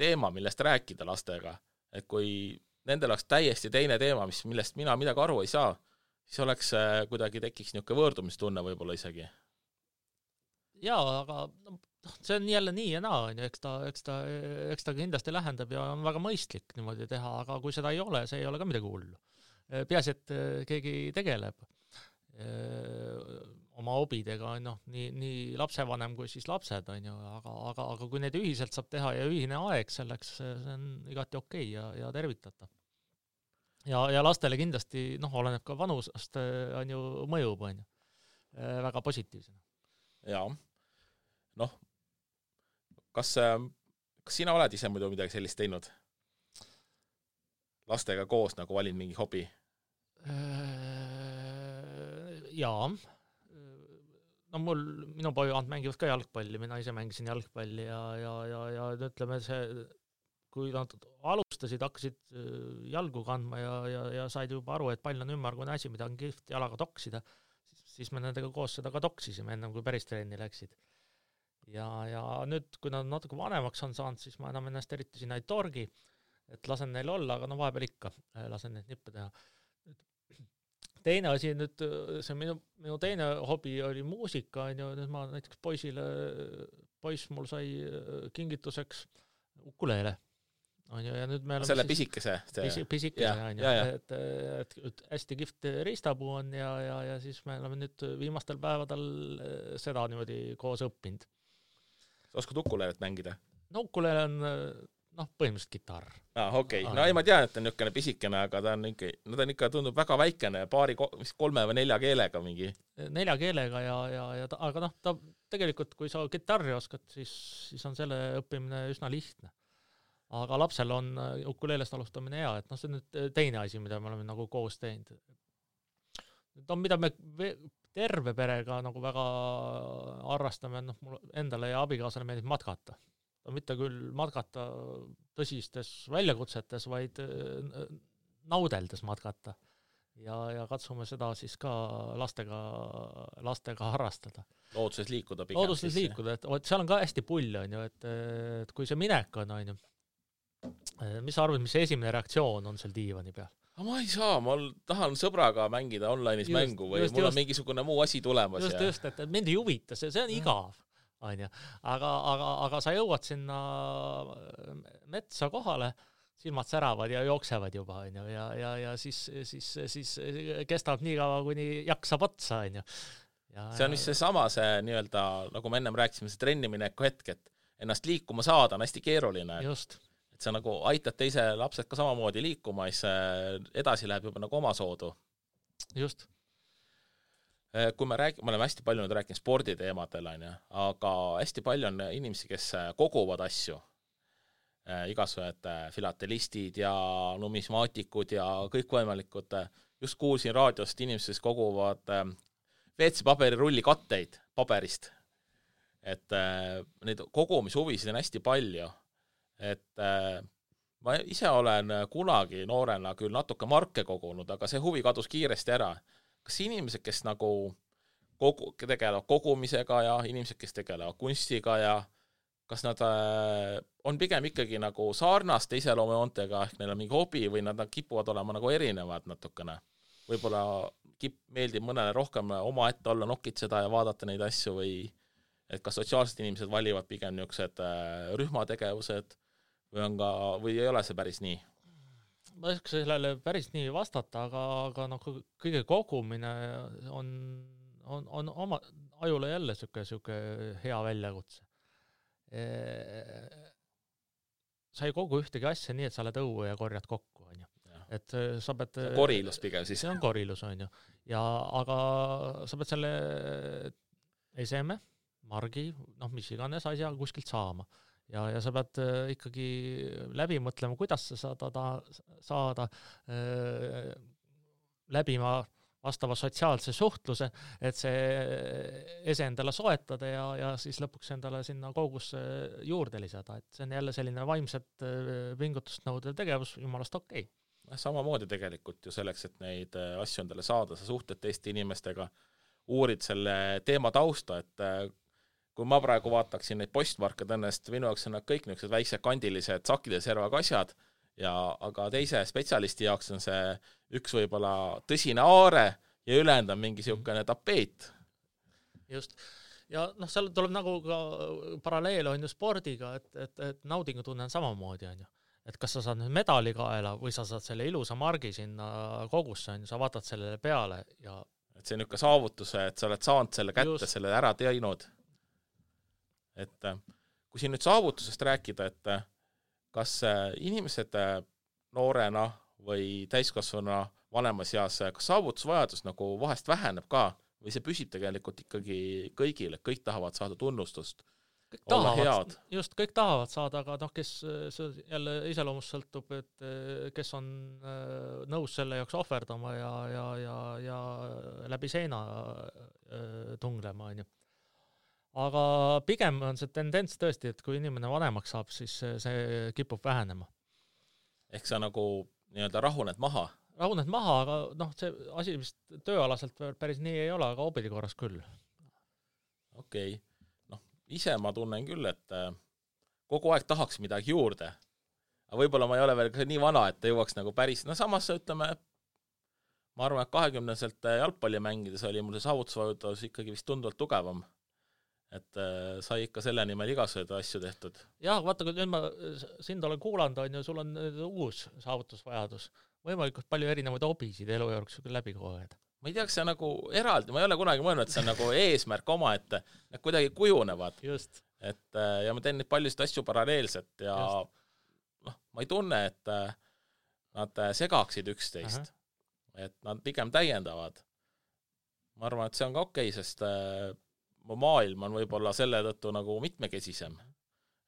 teema, millest rääkida lastega, et kui nendel oleks täiesti teine teema, millest mina midagi aru ei saa, siis oleks kuidagi tekiks niisugune võõrdumistunne võib-olla isegi.
Jaa, aga see on jälle nii ja naa, eks ta kindlasti lähendab ja on väga mõistlik niimoodi teha, aga kui seda ei ole, see ei ole ka midagi hullu. Peaasi, et keegi tegeleb oma hobidega, nii lapsevanem kui siis lapsed, aga kui neid ühiselt saab teha ja ühine aeg selleks, see on igati okei ja tervitatav. Ja lastele kindlasti, oleneb ka vanusest, mõjub, väga positiivsena.
Jaa, kas sina oled ise muidu midagi sellist teinud? Lastega koos nagu valin mingi hobi?
Jaa. Minu pojad mängivad ka jalgpalli, mina ise mängisin jalgpalli ja ütleme see, kui nad alustasid, hakkasid jalgu kandma ja said juba aru, et pall on ümmargune asi, mida on kihvt jalaga toksida, siis me nendega koos seda ka toksisime ennem, kui päris trenni läksid. Ja nüüd, kui nad natuke vanemaks on saanud, siis ma enam ennast eriti sinna ei torgi, et lasen neil olla, aga vahepeal ikka lasen neid nippe teha. Teine asi nüüd, see minu teine hobi oli muusika, nüüd ma näiteks poiss mul sai kingituseks ukulele. Ja nüüd me
selle pisikese?
Pisikese, et hästi kihvt riistapuu on ja siis me oleme nüüd viimastel päevadel seda niimoodi koos õppinud.
Sa oskad ukulelet mängida?
No ukulele on põhimõtteliselt kitarr.
Okei. No ei, ma tean, et on niisugune pisikene, aga ta on ikka tundub väga väikene, 3 või 4 keelega mingi. 4
keelega aga ta tegelikult, kui sa kitarri oskad, siis on selle õppimine üsna lihtne. Aga lapsel on ukuleelest alustamine hea, et see on nüüd teine asi, mida me oleme nagu koos teinud. Mida me terve perega nagu väga arrastame, mul endale ja abikaasale meeldib matkata. Mitte küll matkata tõsistes väljakutsetes, vaid naudeldes matkata. Ja katsume seda siis ka lastega harrastada.
Looduses liikuda pigem.
Looduses liikuda, et seal on ka hästi pull, et kui see minek on, mis sa arvad, mis esimene reaktsioon on seal diivani peal?
Ma ei saa, ma tahan sõbraga mängida online'is mängu või mul on mingisugune muu asi tulemas.
Just, et mind ei huvita, see on igav. Aga sa jõuad sinna metsa kohale, silmad säravad ja jooksevad juba, ja siis kestab nii kaua, kuni jaksab otsa,
See on vist see nii-öelda, nagu me ennem rääkisime, see trennimineku hetk, et ennast liikuma saada on hästi keeruline.
Just.
Et sa nagu aitad teise lapsed ka samamoodi liikuma, siis edasi läheb juba nagu oma soodu.
Just.
Kui me oleme hästi palju nüüd rääkinud sporditeemadel, aga hästi palju on inimesi, kes koguvad asju, igasugused filatelistid ja numismaatikud ja kõik võimalikud. Just kuulsin raadiost inimesed, kes koguvad WC-paberirulli katteid paberist. Et neid kogumishuvisid on hästi palju. Et ma ise olen kunagi noorena küll natuke marke kogunud, aga see huvi kadus kiiresti ära. Kas inimesed, kes nagu tegelevad kogumisega ja inimesed, kes tegelevad kunstiga ja kas nad on pigem ikkagi nagu sarnaste iseloomujoontega, ehk neil on mingi hobi või nad kipuvad olema nagu erinevad natukene. Võib-olla meeldib mõnele rohkem oma ette olla, nokitseda ja vaadata neid asju või et kas sotsiaalsed inimesed valivad pigem niisugused rühmategevused või ei ole see päris nii?
Ma ei saa sellele päris nii vastata, aga kõige kogumine on oma ajule jälle siuke hea väljakutse. Sa ei kogu ühtegi asja nii, et sa oled õue ja korjad kokku, Et sa pead...
Korilus pigem siis.
See on korilus, aga sa pead selle eseme, margi, mis iganes asja kuskilt saama. Ja sa pead ikkagi läbi mõtlema, kuidas sa saada läbima vastava sotsiaalse suhtluse, et see ese endale soetada ja siis lõpuks endale sinna koogusse juurde lisada. Et see on jälle selline vaimset pingutust nõudev tegevus, jumalast okei.
Samamoodi tegelikult ju selleks, et neid asju endale saada, sa suhtled teiste inimestega, uurid selle teema tausta, et kui ma praegu vaataksin neid postmarke tõnnest, minu jaoks on nad kõik niisugused väiksed kandilised sakide servaga asjad, aga teise spetsialisti jaoks on see üks võib-olla tõsine aare ja ülejäänud on mingi niisugune tapeet.
Just. Ja seal tuleb nagu ka paralleel on ju spordiga, et naudingutunne on samamoodi on ju. Et kas sa saad nüüd medali kaela või sa saad selle ilusa margi sinna kogusse, sa vaatad sellele peale ja
et see on niisugune saavutuse, et sa oled saanud selle kätte, just. Selle ära teinud. Et kui siin nüüd saavutusest rääkida, et kas inimesed noorena või täiskasvana vanemas eas, kas saavutusvajadus nagu vahest väheneb ka või see püsib tegelikult ikkagi kõigile, kõik tahavad saada tunnustust?
Kõik tahavad, just kõik tahavad saada, aga kes jälle iseloomust sõltub, et kes on nõus selle jaoks ohverdama ja läbi seina tunglema. On ju. Aga pigem on see tendents tõesti, et kui inimene vanemaks saab, siis see kipub vähenema.
Ehk sa nagu nii-öelda rahuned maha?
Rahuned maha, aga see asi vist tööalaselt päris nii ei ole, aga hobide korras küll.
Okei. Ise ma tunnen küll, et kogu aeg tahaks midagi juurde. Aga võib-olla ma ei ole veel nii vana, et jõuaks nagu päris... samas ütleme, ma arvan, et 20-selt jalgpalli mängides oli mul see saavutusvajudus ikkagi vist tunduvalt tugevam. Et sai ikka selle nimel igasuguseid asju tehtud.
Jah, vaata, kui nüüd ma sind olen kuulanud, on ju, sul on uus saavutusvajadus. Võimalikult palju erinevaid hobisid elu juures läbi koogeda.
Ma ei tea, kas see nagu eraldi, ma ei ole kunagi mõelnud, et see on nagu eesmärk oma, et nad kuidagi kujunevad.
Just.
Ja ma teen neid paljusid asju paralleelselt ja ma ei tunne, et nad segaksid üksteist. Et nad pigem täiendavad. Ma arvan, et see on ka okei, sest mu maailm on võib-olla selle tõttu nagu mitmekesisem.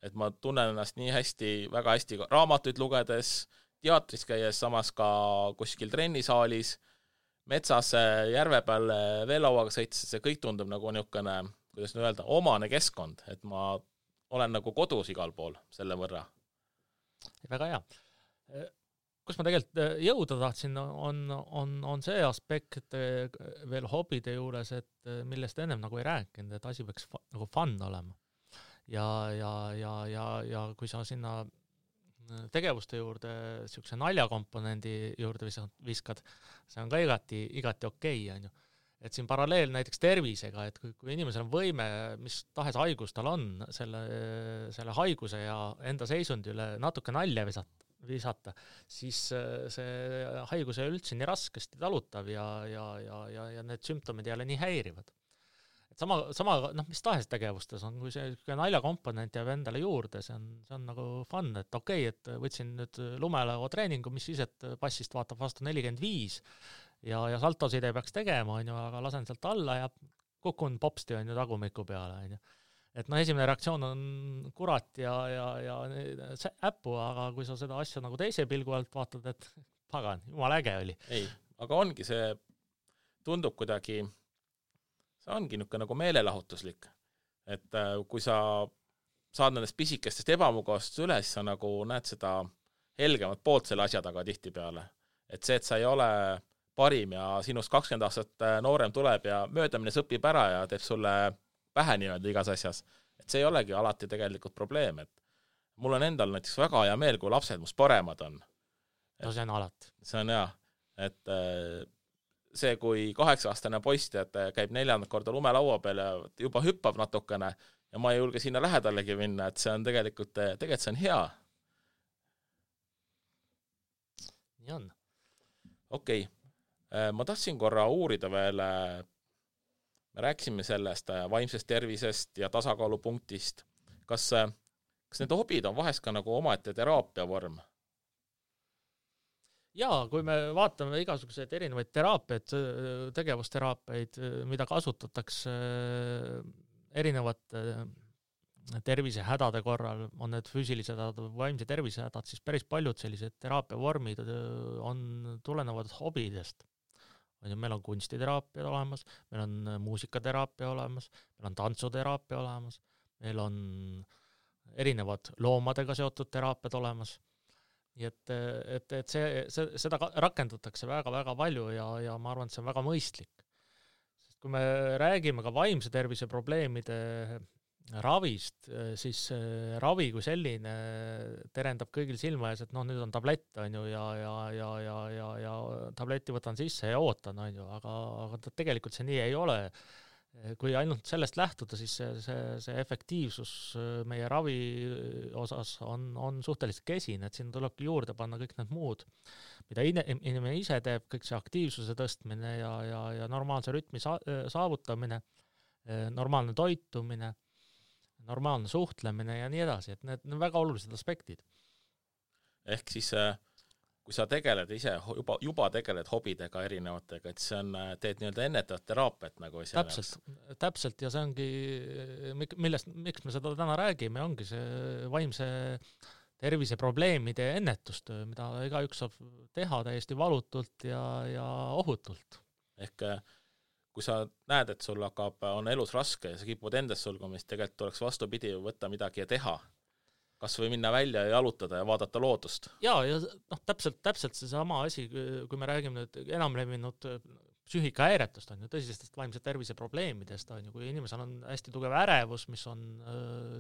Et ma tunnen ennast nii hästi, väga hästi raamatuid lugedes, teatris käies, samas ka kuskil trennisaalis, metsas järve peal veelauaga sõites, see kõik tundub nagu niisugune, kuidas nüüd öelda, omane keskkond, et ma olen nagu kodus igal pool selle võrra.
Väga hea. Kus ma tegelikult jõuda tahtsin, on see aspekt veel hobide juures, et millest ennem nagu ei rääkinud, et asi peaks nagu fun olema. Ja kui sa sinna tegevuste juurde siukse naljakomponendi juurde viskad, see on ka igati okei, on ju. Et siin paralleel näiteks tervisega, et kui inimesel on võime, mis tahes haigus tal on, selle haiguse ja enda seisundi üle natuke nalja visata, siis see haigus ei üldse nii raskesti talutav ja need sümptomid ei ole nii häirivad. Et sama mis tahes tegevustes on, kui see naljakomponent jääb endale juurde, see on nagu fun, et okei, et võtsin nüüd lumelao treeningu, mis siis, et passist vaatab vastu 45 ja saltosid ei peaks tegema, on ju, aga lasen sealt alla ja kukun popsti on ju tagumiku peale, on ju. Et esimene reaktsioon on kurat ja äppu, aga kui sa seda asja nagu teise pilgu alt vaatad, et pagan, jumal äge oli.
Ei, aga ongi see, tundub kuidagi see ongi niisugune nagu meelelahutuslik, et kui sa saad nendest pisikestest ebamugavast üle, siis sa nagu näed seda helgemat poolt selle asja taga tihtipeale. Et see, et sa ei ole parim ja sinust 20 aastat noorem tuleb ja möödamine õpib ära ja teeb sulle pähe nii-öelda igas asjas, et see ei olegi alati tegelikult probleem, et mul on endal näiteks väga hea meel, kui lapsed must paremad on.
No see on alati.
See on hea, et see, kui 8-aastane poiss käib 4. korda lumelaua peal ja juba hüppab natukene ja ma ei julge sinna lähedalegi minna, et see on tegelikult see on hea.
Nii on.
Okei. Ma tahtsin korra uurida veel, me rääkisime sellest vaimsest tervisest ja tasakaalupunktist. Kas need hobid on vahest ka nagu omaette teraapia vorm?
Jaa, kui me vaatame igasuguseid erinevaid teraapiaid, tegevusteraapiaid, mida kasutatakse erinevad tervisehädade korral, on need füüsilised hädad või vaimse tervisehädad, siis päris paljud sellised teraapiavormid tulenevad hobidest. Meil on kunstiteraapia olemas, meil on muusikateraapia olemas, meil on tantsuteraapia olemas, meil on erinevad loomadega seotud teraapiad olemas. Nii et seda rakendatakse väga-väga palju ja ma arvan, et see on väga mõistlik. Sest kui me räägime ka vaimse tervise probleemide ravist, siis ravi kui selline terendab kõigil silma ees, et nüüd on tablett, on ju, ja tableti võtan sisse ja ootan, on ju, aga tegelikult see nii ei ole. Kui ainult sellest lähtuda, siis see efektiivsus meie ravi osas on suhteliselt kesine, et siin tulebki juurde panna kõik need muud, mida inimene ise teeb, kõik see aktiivsuse tõstmine ja normaalse rütmi saavutamine, normaalne toitumine, normaalne suhtlemine ja nii edasi, et need on väga olulised aspektid.
Ehk siis, kui sa tegeled ise, juba tegeled hobidega erinevatega, et see on, teed nii-öelda ennetavat teraapiat nagu ise.
Täpselt ja see ongi, miks me seda täna räägime, ongi see vaimse tervise probleemide ennetustöö, mida igaüks saab teha täiesti valutult ja ohutult.
Ehk kui sa näed, et sul on elus raske ja sa kipud endast sulgumist, tegelikult tuleks vastupidi võtta midagi ja teha. Kas või minna välja ja jalutada ja vaadata loodust?
Ja täpselt see sama asi, kui me räägime nüüd enam levinud psüühikahäiretest, on ju, tõsistest vaimse tervise probleemidest, on ju, kui inimesel on hästi tugev ärevus, mis on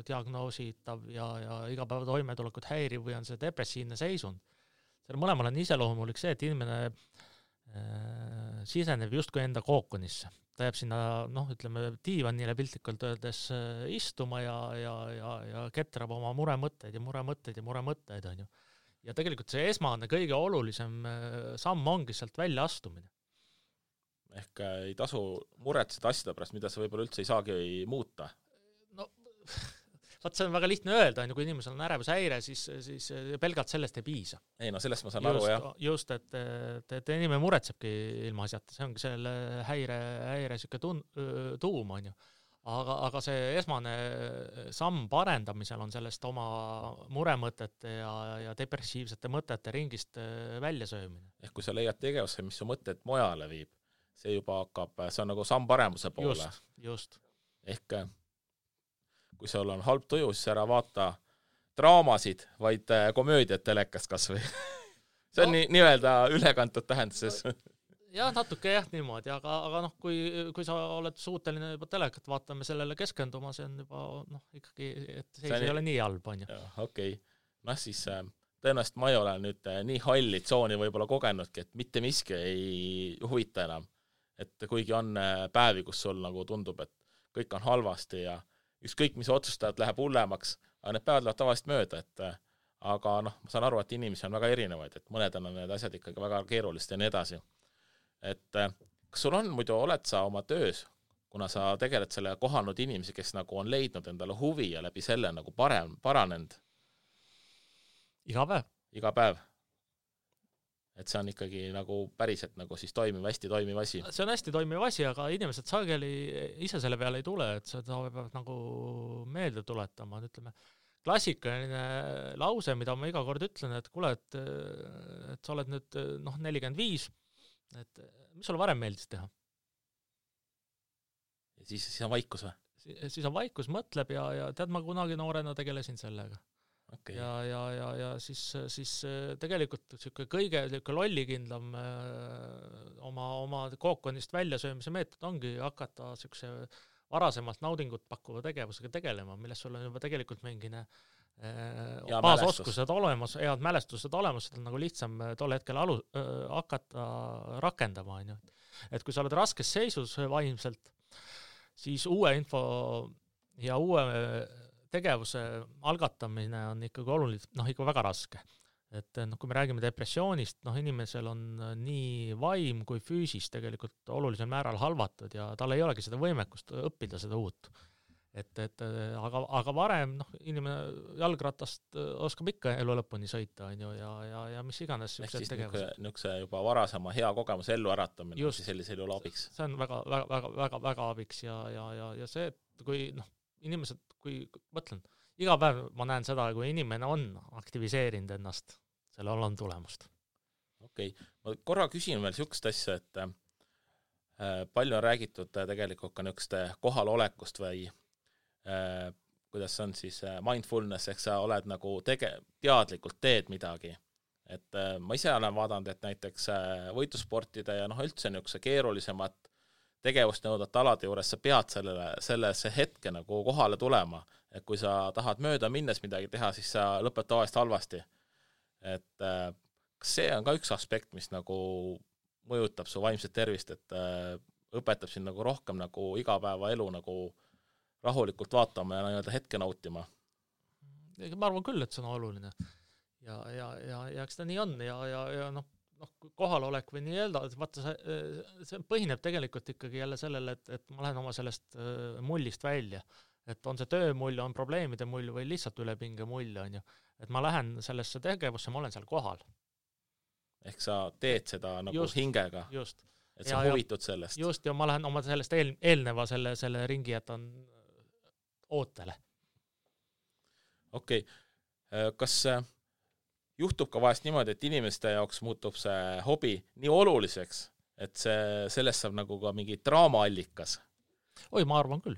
diagnoositav ja igapäeva toimetulekut häiriv või on see depressiivne seisund. Selle mõlemal on iseloomulik see, et inimene siseneb justkui enda kookonisse. Ta jääb sinna, diivanile piltlikult öeldes istuma ja ketrab oma muremõtteid, on ju. Ja tegelikult see esmane kõige olulisem samm ongi sealt välja astumine.
Ehk ei tasu muretseda asjade pärast, mida sa võib-olla üldse ei saagi muuta.
See on väga lihtne öelda, kui inimesel on ärevushäire, siis pelgalt sellest ei piisa.
Ei, sellest ma saan aru, jah.
Just, et inimene muretsebki ilma asjata, see ongi selle häire siuke tuum, on ju. Aga see esmane samm parendamisel on sellest oma muremõtete ja depressiivsete mõtete ringist väljasöömine.
Ehk kui sa leiad tegevusse, mis su mõtted mojale viib, see juba hakkab, see on nagu samm paremuse poole.
Just.
Ehk kui sul on halb tuju, siis ära vaata draamasid, vaid komöödiat telekast kas või. See on nii-öelda ülekantud tähenduses.
Jah, natuke niimoodi, aga kui sa oled suuteline juba telekat vaatame sellele keskenduma, see on juba ikkagi, et see ei ole nii halb, on ju.
Okei. Siis tõenäoliselt ma ei ole nüüd nii halli tsooni võib-olla kogenudki, et mitte miski ei huvita enam. Et kuigi on päevi, kus sul nagu tundub, et kõik on halvasti ja ükskõik, mis otsustajad läheb hullemaks, aga need päevad lähevad tavaliselt mööda, aga ma saan aru, et inimesi on väga erinevaid, et mõned on need asjad ikkagi väga keerulist ja nii edasi. Et kas sul on muidu, oled sa oma töös, kuna sa tegeled selle kohanud inimesi, kes nagu on leidnud endale huvi ja läbi selle nagu paranenud? Iga päev. Et see on ikkagi nagu päriselt nagu siis hästi toimiv asi.
See on hästi toimiv asi, aga inimesed sageli ise selle peale ei tule, et seda peab nagu meelde tuletama. Ütleme, klassikaline lause, mida ma iga kord ütlen, et kuule, et sa oled nüüd 45, et mis sulle varem meeldis teha?
Ja siis on vaikus või?
Siis on vaikus, mõtleb ja tead, ma kunagi noorena tegelesin sellega.
Okay.
Ja siis tegelikult kõige lollikindlam oma kookonist väljasöömise meetod ongi hakata varasemalt naudingut pakkuva tegevusega tegelema, milles sul on juba tegelikult mingine baasoskused olemas, head mälestused olemas, seda on nagu lihtsam tol hetkel hakata rakendama. On ju. Et kui sa oled raskes seisus vaimselt, siis uue info ja uue tegevuse algatamine on ikkagi oluline, ikka väga raske. Et kui me räägime depressioonist, inimesel on nii vaim kui füüsis tegelikult olulisel määral halvatud ja tal ei olegi seda võimekust õppida seda uut. aga varem inimene jalgratast oskab ikka elu lõpuni sõita, on ju, ja mis iganes
ehk siis niisuguse juba varasema hea kogemuse ellu äratamine just, sellisel juhul abiks.
See on väga abiks ja see, et kui inimesed, kui mõtlen, iga päev ma näen seda, kui inimene on aktiviseerinud ennast, sellel on tulemust.
Okei. Ma korra küsin veel niisugust asja, et palju on räägitud tegelikult ka niisuguste kohalolekust või kuidas on siis mindfulness, ehk sa oled nagu teadlikult teed midagi. Et ma ise olen vaadanud, et näiteks võitlusportide ja üldse niisuguse keerulisemat tegevust nõudvate alade juures sa pead sellesse hetke nagu kohale tulema. Et kui sa tahad mööda minnes midagi teha, siis sa lõped tavaliselt halvasti. Et kas see on ka üks aspekt, mis nagu mõjutab su vaimset tervist, et õpetab sind nagu rohkem nagu igapäeva elu nagu rahulikult vaatama ja nii-öelda hetke nautima?
Ma arvan küll, et see on oluline. Ja eks ta nii on ja kohalolek või nii öelda, et vaata, see põhineb tegelikult ikkagi jälle sellele, et ma lähen oma sellest mullist välja. Et on see töömull, on probleemide mull või lihtsalt ülepinge mull, on ju. Et ma lähen sellesse tegevusse, ma olen seal kohal.
Ehk sa teed seda nagu just, hingega.
Just.
Et sa huvitud sellest.
Just, ja ma lähen oma sellest eelneva selle ringi, et on ootele. Okei.
Kas juhtub ka vahest niimoodi, et inimeste jaoks muutub see hobi nii oluliseks, et sellest saab nagu ka mingi draamaallikas?
Oi, ma arvan küll.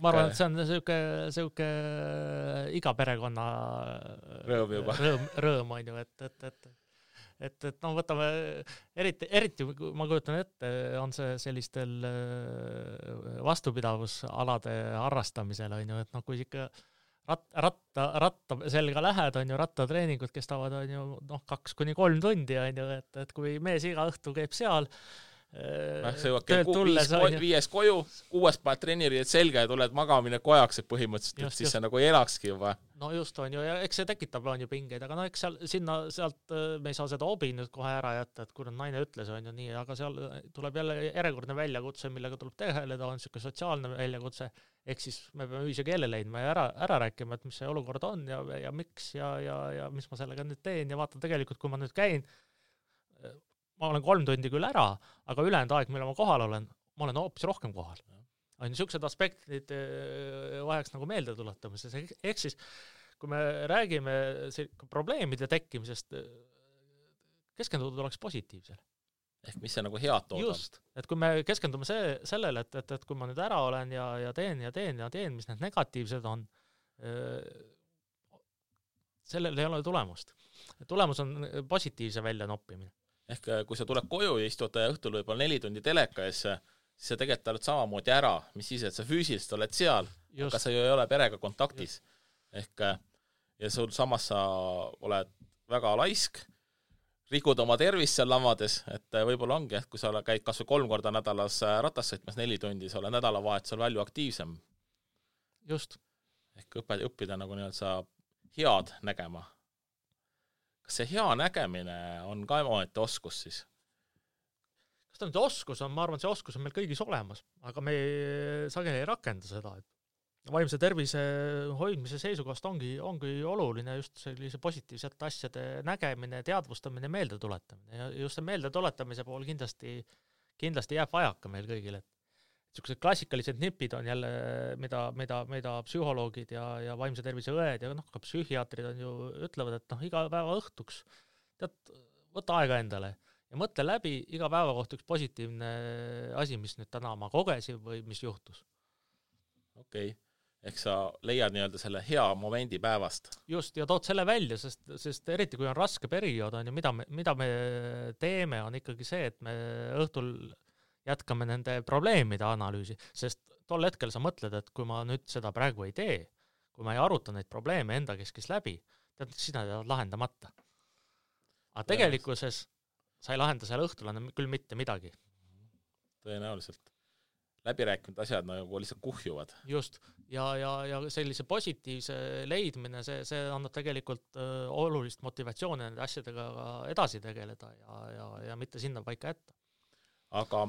Ma arvan, et see on selline iga perekonna rõõm on ju, et võtame, eriti ma kujutan ette, on see sellistel vastupidavusalade harrastamisel, on ju, et kui ikka ratta selga lähed, on ju, rattatreeningud kestavad, on ju, 2-3 tundi, on ju, et kui mees iga õhtu käib seal,
töölt tulles viies koju, 6 paned treeniriid selga ja tuled magamine kojaks, et põhimõtteliselt, et siis see nagu ei elakski juba.
No just on ju, ja eks see tekitab on ju pingeid, aga eks sealt me ei saa seda hobi nüüd kohe ära jätta, et kui naine ütles, on ju nii, aga seal tuleb jälle järjekordne väljakutse, millega tuleb tegeleda, on selline sotsiaalne väljakutse, ehk siis me peame ühise keele leidma ja ära rääkima, et mis see olukord on ja miks ja mis ma sellega nüüd teen ja vaata tegelikult, kui ma nüüd käin, ma olen 3 tundi küll ära, aga ülejäänud aeg, mille ma kohal olen, ma olen hoopis rohkem kohal. On niisugused aspektid vajaks nagu meelde tuletamises. Ehk siis, kui me räägime probleemide tekkimisest, keskenduda oleks positiivsel.
Ehk mis see nagu head toodab?
Just, et kui me keskendume sellele, et kui ma nüüd ära olen ja teen, mis need negatiivsed on, sellel ei ole tulemust. Tulemus on positiivse välja noppimine.
Ehk kui sa tuled koju ja istud õhtul võib-olla 4 tundi teleka ees, siis sa tegelikult oled samamoodi ära, mis siis, et sa füüsiliselt oled seal, aga sa ju ei ole perega kontaktis. Ehk ja sul samas sa oled väga laisk, rikud oma tervist seal lamades, et võib-olla ongi, et kui sa käid kas või 3 korda nädalas ratas sõitmas 4 tundi, sa oled nädalavahetusel palju aktiivsem.
Just.
Ehk õppida nagu nii-öelda head nägema. Kas see hea nägemine on ka omaette oskus siis?
Kas ta nüüd oskus on? Ma arvan, see oskus on meil kõigis olemas, aga me sageli ei rakenda seda. Et vaimse tervise hoidmise seisukohast ongi oluline just sellise positiivsete asjade nägemine, teadvustamine, meeldetuletamine. Ja just see meeldetuletamise pool kindlasti jääb vajaka meil kõigile. Niisugused klassikalised nipid on jälle, mida psühholoogid ja vaimse tervise õed ja ka psühhiaatrid on ju ütlevad, et iga päeva õhtuks võta aega endale ja mõtle läbi iga päeva kohta üks positiivne asi, mis nüüd täna ma kogesin või mis juhtus.
Okei. Ehk sa leiad nii-öelda selle hea momendi päevast.
Just, ja tood selle välja, sest eriti kui on raske periood, on ju, mida me teeme, on ikkagi see, et me õhtul jätkame nende probleemide analüüsi, sest tol hetkel sa mõtled, et kui ma nüüd seda praegu ei tee, kui ma ei aruta neid probleeme enda keskis läbi, siis nad jäävad lahendamata. Aga tegelikkuses sa ei lahenda seal õhtul küll mitte midagi.
Tõenäoliselt. Läbirääkinud asjad nagu lihtsalt kuhjuvad.
Just, ja sellise positiivse leidmine, see annab tegelikult olulist motivatsiooni nende asjadega edasi tegeleda ja mitte sinna paika jätta.
Aga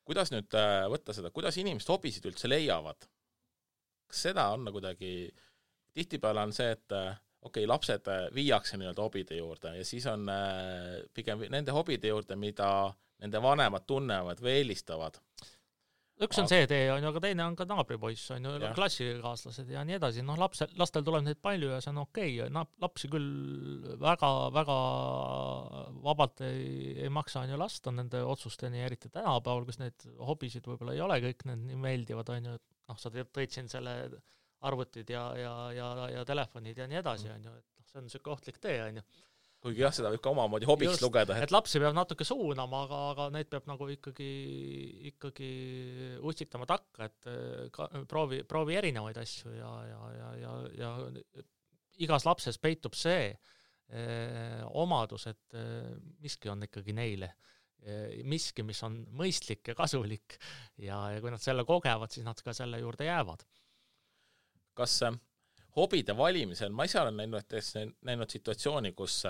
kuidas nüüd võtta seda, kuidas inimesed hobisid üldse leiavad? kas seda on kuidagi, tihtipeale on see, et okei, lapsed viiakse nii-öelda hobide juurde ja siis on pigem nende hobide juurde, mida nende vanemad tunnevad või eelistavad.
Üks on see tee, on ju, aga teine on ka naabripoiss, on ju, klassikaaslased ja nii edasi. Noh, lastel tuleb neid palju ja see on okei. Lapsi küll väga vabalt ei maksa on ju lasta nende otsusteni, eriti tänapäeval, kus neid hobisid võib-olla ei ole kõik need nii meeldivad, on ju, et noh, sa tõid siin selle arvutid ja telefonid ja nii edasi, on ju, et see on selline ohtlik tee, on ju.
Kuigi jah, seda võib ka omamoodi hobiks lugeda.
Et lapsi peab natuke suunama, aga neid peab nagu ikkagi utsitama takka, et proovi erinevaid asju ja igas lapses peitub see omadus, et miski on ikkagi neile. Miski, mis on mõistlik ja kasulik ja kui nad selle kogevad, siis nad ka selle juurde jäävad.
Kas hobide valimisel, ma ise olen näinud situatsiooni, kus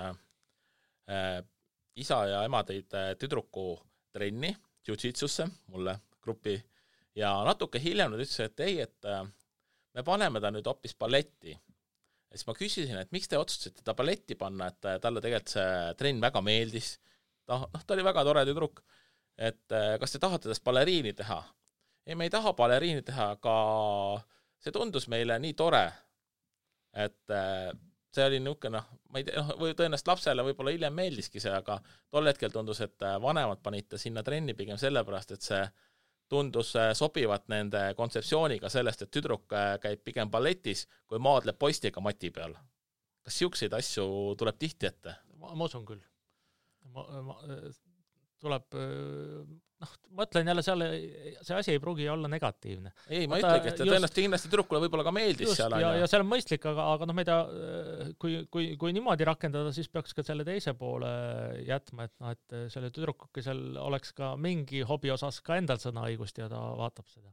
isa ja ema tõid tüdruku trenni, jiu-jitsusse, mulle gruppi, ja natuke hiljem nad ütlesid, et ei, et me paneme ta nüüd hoopis balletti. Ja siis ma küsisin, et miks te otsustasite ta balletti panna, et talle tegelikult see trenn väga meeldis. Ta oli väga tore tüdruk, et kas te tahate tast baleriini teha? Ei, me ei taha baleriini teha, aga see tundus meile nii tore, et see oli niisugune, ma ei tea, või tõenäoliselt lapsele võib-olla hiljem meeldiski see, aga tol hetkel tundus, et vanemad panite sinna trenni pigem sellepärast, et see tundus sobivat nende kontseptsiooniga sellest, et tüdruk käib pigem balletis, kui maadleb poistiga mati peal. Kas siukseid asju tuleb tihti ette?
Ma usun küll. Tuleb, ma ütlen jälle see asi ei pruugi olla negatiivne.
Ei, ma ütlegi, et tõenäoliselt kindlasti tüdrukule võib-olla ka meeldis
just,
seal.
Ja see on mõistlik, aga ma ei tea, kui niimoodi rakendada, siis peaks ka selle teise poole jätma, et selle tüdrukukesel oleks ka mingi hobi osas ka endal sõnaõigust ja ta vaatab seda.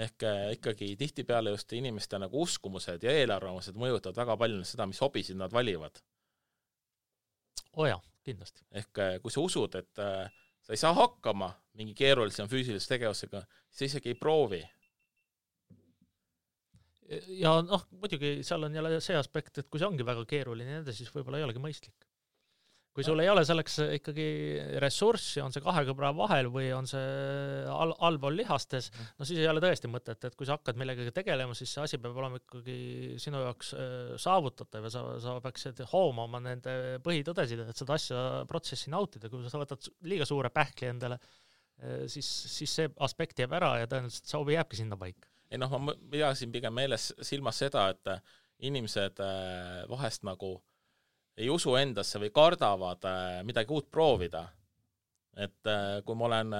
Ehk ikkagi tihtipeale just inimeste nagu uskumused ja eelarvamused mõjutavad väga palju seda, mis hobisid nad valivad.
Oja. Kindlasti.
Ehk kui sa usud, et sa ei saa hakkama mingi keerulisem füüsilise tegevusega, siis sa isegi ei proovi.
Ja muidugi seal on jälle see aspekt, et kui see ongi väga keeruline, siis võib-olla ei olegi mõistlik. Kui sul ei ole selleks ikkagi ressurssi, on see kahe kõbra vahel või on see allpool lihastes, siis ei ole tõesti mõtet, et kui sa hakkad millegagi tegelema, siis see asi peab olema ikkagi sinu jaoks saavutatav ja sa peaksid hoomama nende põhitõdesid, et seda asja protsessi nautida. Kui sa võtad liiga suure pähkli endale, siis see aspekt jääb ära ja tõenäoliselt see hobi jääbki sinna paika.
Ei ma pidasin pigem meeles silmas seda, et inimesed vahest nagu ei usu endasse või kardavad midagi uut proovida. Et kui ma olen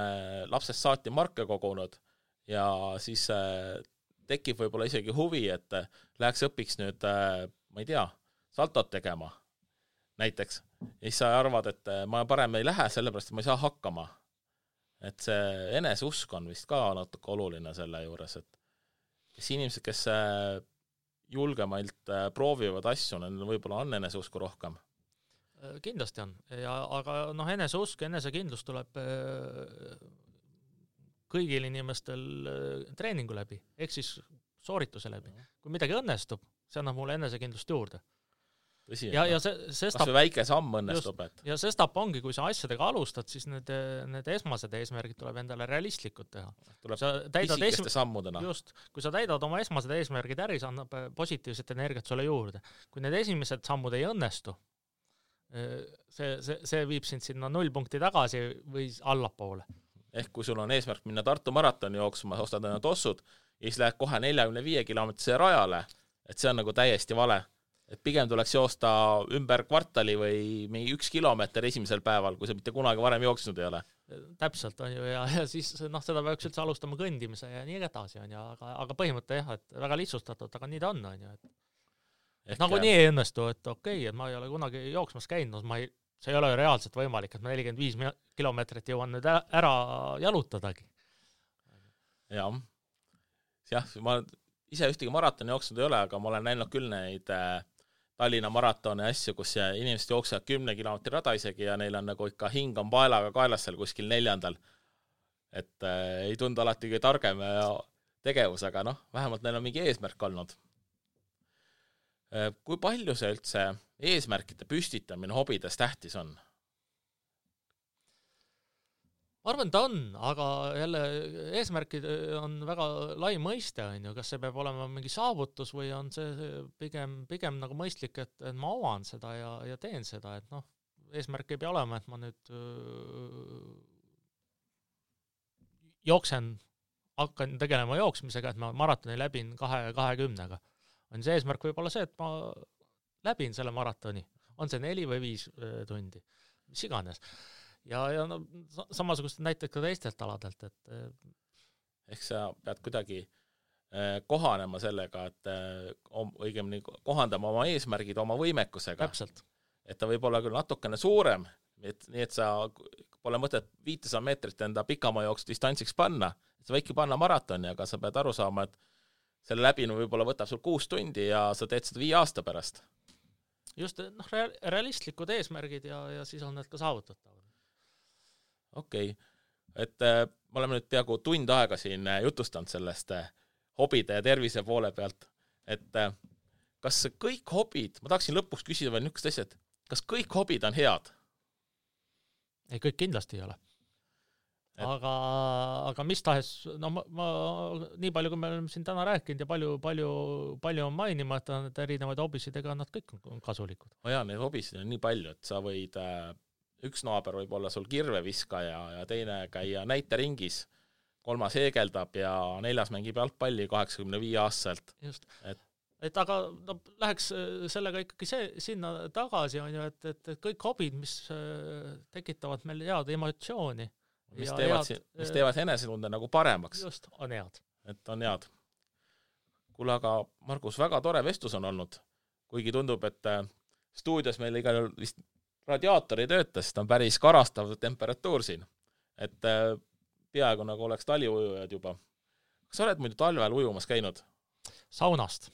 lapsest saati marke kogunud ja siis tekib võib-olla isegi huvi, et läheks õpiks nüüd, ma ei tea, saltot tegema näiteks. Ja siis sa arvad, et ma parem ei lähe sellepärast, et ma ei saa hakkama. Et see eneseusk on vist ka natuke oluline selle juures, et kes inimesed, kes julgemalt proovivad asju, võib-olla on eneseusku rohkem.
Kindlasti on, aga eneseusk ja enesekindlus tuleb kõigil inimestel treeningu läbi, ehk siis soorituse läbi. Kui midagi õnnestub, see annab mulle enesekindlust juurde.
Tõsi,
ja see
kas või väike samm õnnestub.
Ja see stap ongi, kui sa asjadega alustad, siis need esmased eesmärgid tuleb endale realistlikud teha.
Tuleb pisikeste sammudena.
Just, kui sa täidad oma esmased eesmärgid äri, see annab positiivset energiat sulle juurde. Kui need esimesed sammud ei õnnestu, see viib sind sinna 0 punkti tagasi või allapoole.
Ehk kui sul on eesmärk minna Tartu maratoni jooksma, ostad enne tossud ja siis lähed kohe 45 kilomeetrise rajale, et see on nagu täiesti vale. Et pigem tuleks joosta ümber kvartali või mingi 1 kilomeeter esimesel päeval, kui sa mitte kunagi varem jooksnud ei ole.
Täpselt on ju ja siis seda peaks üldse alustama kõndimise ja nii edasi on ju, aga põhimõte jah, et väga lihtsustatud, aga nii ta on ju. Nagu nii ei õnnestu, et okei, et ma ei ole kunagi jooksmas käinud, see ei ole reaalselt võimalik, et ma 45 kilomeetrit jõuan nüüd ära jalutadagi.
Jah, ma ise ühtegi maratoni jooksnud ei ole, aga ma olen näinud küll neid Tallinna maratoni asju, kus inimesed jooksevad 10 kilomeetri rada isegi ja neil on nagu ikka hing on paelaga kaelas seal kuskil 4. Et ei tundu alati kõige targem ja tegevus, aga noh, vähemalt neil on mingi eesmärk olnud. Kui palju see üldse eesmärkide püstitamine hobides tähtis on?
Ma arvan, ta on, aga jälle eesmärkid on väga lai mõiste, on ju, kas see peab olema mingi saavutus või on see pigem nagu mõistlik, et ma oman seda ja teen seda, et noh, eesmärk ei pea olema, et ma nüüd hakkan tegelema jooksmisega, et ma maratoni läbin 20-ga. On see eesmärk võib olla see, et ma läbin selle maratoni, on see 4 või 5 tundi, mis iganes. Ja no, samasugust näited ka teistelt aladelt, et
ehk sa pead kuidagi kohanema sellega, et õigemini kohandama oma eesmärgid oma võimekusega.
Täpselt.
Et ta võib olla küll natukene suurem, nii et sa pole mõtet 500 meetrit enda pikamaa jooksu distantsiks panna, et sa võidki panna maratoni, aga sa pead aru saama, et selle läbinu võib-olla võtab sul 6 tundi ja sa teed seda 5 aasta pärast.
Just, noh, realistlikud eesmärgid ja siis on need ka saavutatavad.
Okei. Et me oleme nüüd peaaegu tund aega siin jutustanud sellest hobide ja tervise poole pealt, et kas kõik hobid, ma tahaksin lõpuks küsida veel niisugust asja, et kas kõik hobid on head?
Ei, kõik kindlasti ei ole. Aga mis tahes, no ma nii palju, kui me oleme siin täna rääkinud ja palju on mainima, et erinevaid hobisid, ega nad kõik on kasulikud.
Jaa, neid hobisid on nii palju, et sa võid üks naaber võib olla sul kirveviskaja ja teine käia näiteringis, 3 heegeldab ja 4 mängib jalgpalli 85-aastaselt.
Just. Et aga no, läheks sellega ikkagi sinna tagasi, on ju, et kõik hobid, mis tekitavad meil head emotsiooni.
Mis teevad enesetunde nagu paremaks.
Just, on head.
Et on head. Kuule, aga Margus, väga tore vestlus on olnud, kuigi tundub, et stuudios meil igal vist radiaator ei tööta, sest on päris karastav temperatuur siin. Et peaaegu nagu oleks taliujujad juba. Kas sa oled muidu talvel ujumas käinud?
Saunast.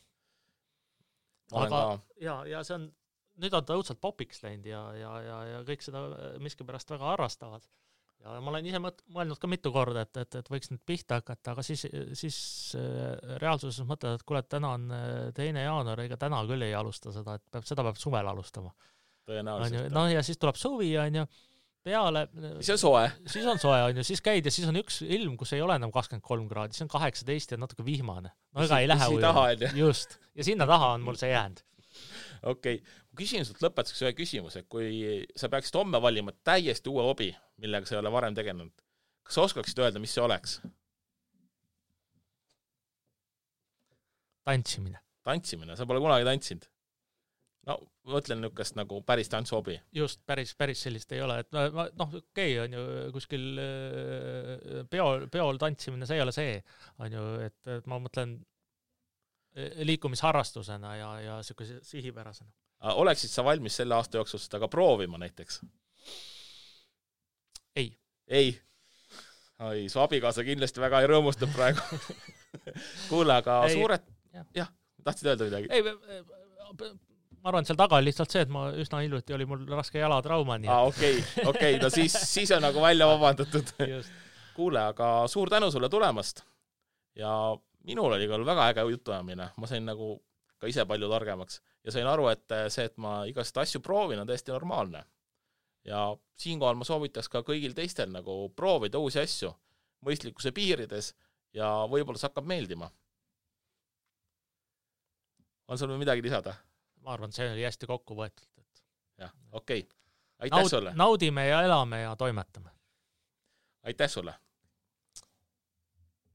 Aga ja see on, nüüd on ta õudselt popiks läinud ja kõik seda miskipärast väga harrastavad. Ja ma olen ise mõelnud ka mitu korda, et võiks nüüd pihta hakata, aga siis reaalsuses mõtled, et kuule, täna on 2. jaanuar, ega täna küll ei alusta seda, et seda peab suvel alustama.
Tõenäoliselt.
No ja siis tuleb suvi, on ju, peale.
Siis on soe.
Siis on soe, on ju, siis käid ja siis on üks ilm, kus ei ole enam 23 kraadi, siis on 18 ja natuke vihmane. No ega ei lähe ujuma. Just. Ja sinna taha on mul see jäänud.
Okei. Ma küsin sult lõpetuseks ühe küsimuse, kui sa peaksid homme valima täiesti uue hobi, millega sa ei ole varem tegelenud, kas sa oskaksid öelda, mis see oleks?
Tantsimine.
Tantsimine, sa pole kunagi tantsinud? No, mõtlen niisugust nagu päris tantsuhobi.
Just, päris sellist ei ole. Et noh, okei, on ju, kuskil peol tantsimine, see ei ole see. On ju, et ma mõtlen liikumisharrastusena ja siukese sihipärasena.
Oleksid sa valmis selle aasta jooksul seda ka proovima näiteks?
Ei.
Ei? Ai, su abikaasa kindlasti väga ei rõõmustab praegu. Kuule, aga suured... Jah, tahtsid öelda midagi?
Ei, ma arvan, et seal taga oli lihtsalt see, et ma üsna hiljuti oli mul raske jalatrauma.
Okei, no siis on nagu välja vabandatud. Kuule, aga suur tänu sulle tulemast. Ja minul oli küll väga äge jutuajamine. Ma sain nagu ka ise palju targemaks. Ja sain aru, et see, et ma igast asju proovin, on täiesti normaalne. Ja siinkohal ma soovitaks ka kõigil teistel nagu proovida uusi asju mõistlikkuse piirides ja võib-olla see hakkab meeldima. On sul midagi lisada?
Ma arvan, see oli hästi kokku võetud.
Jah, okei. Aitäh sulle.
Naudime ja elame ja toimetame.
Aitäh sulle.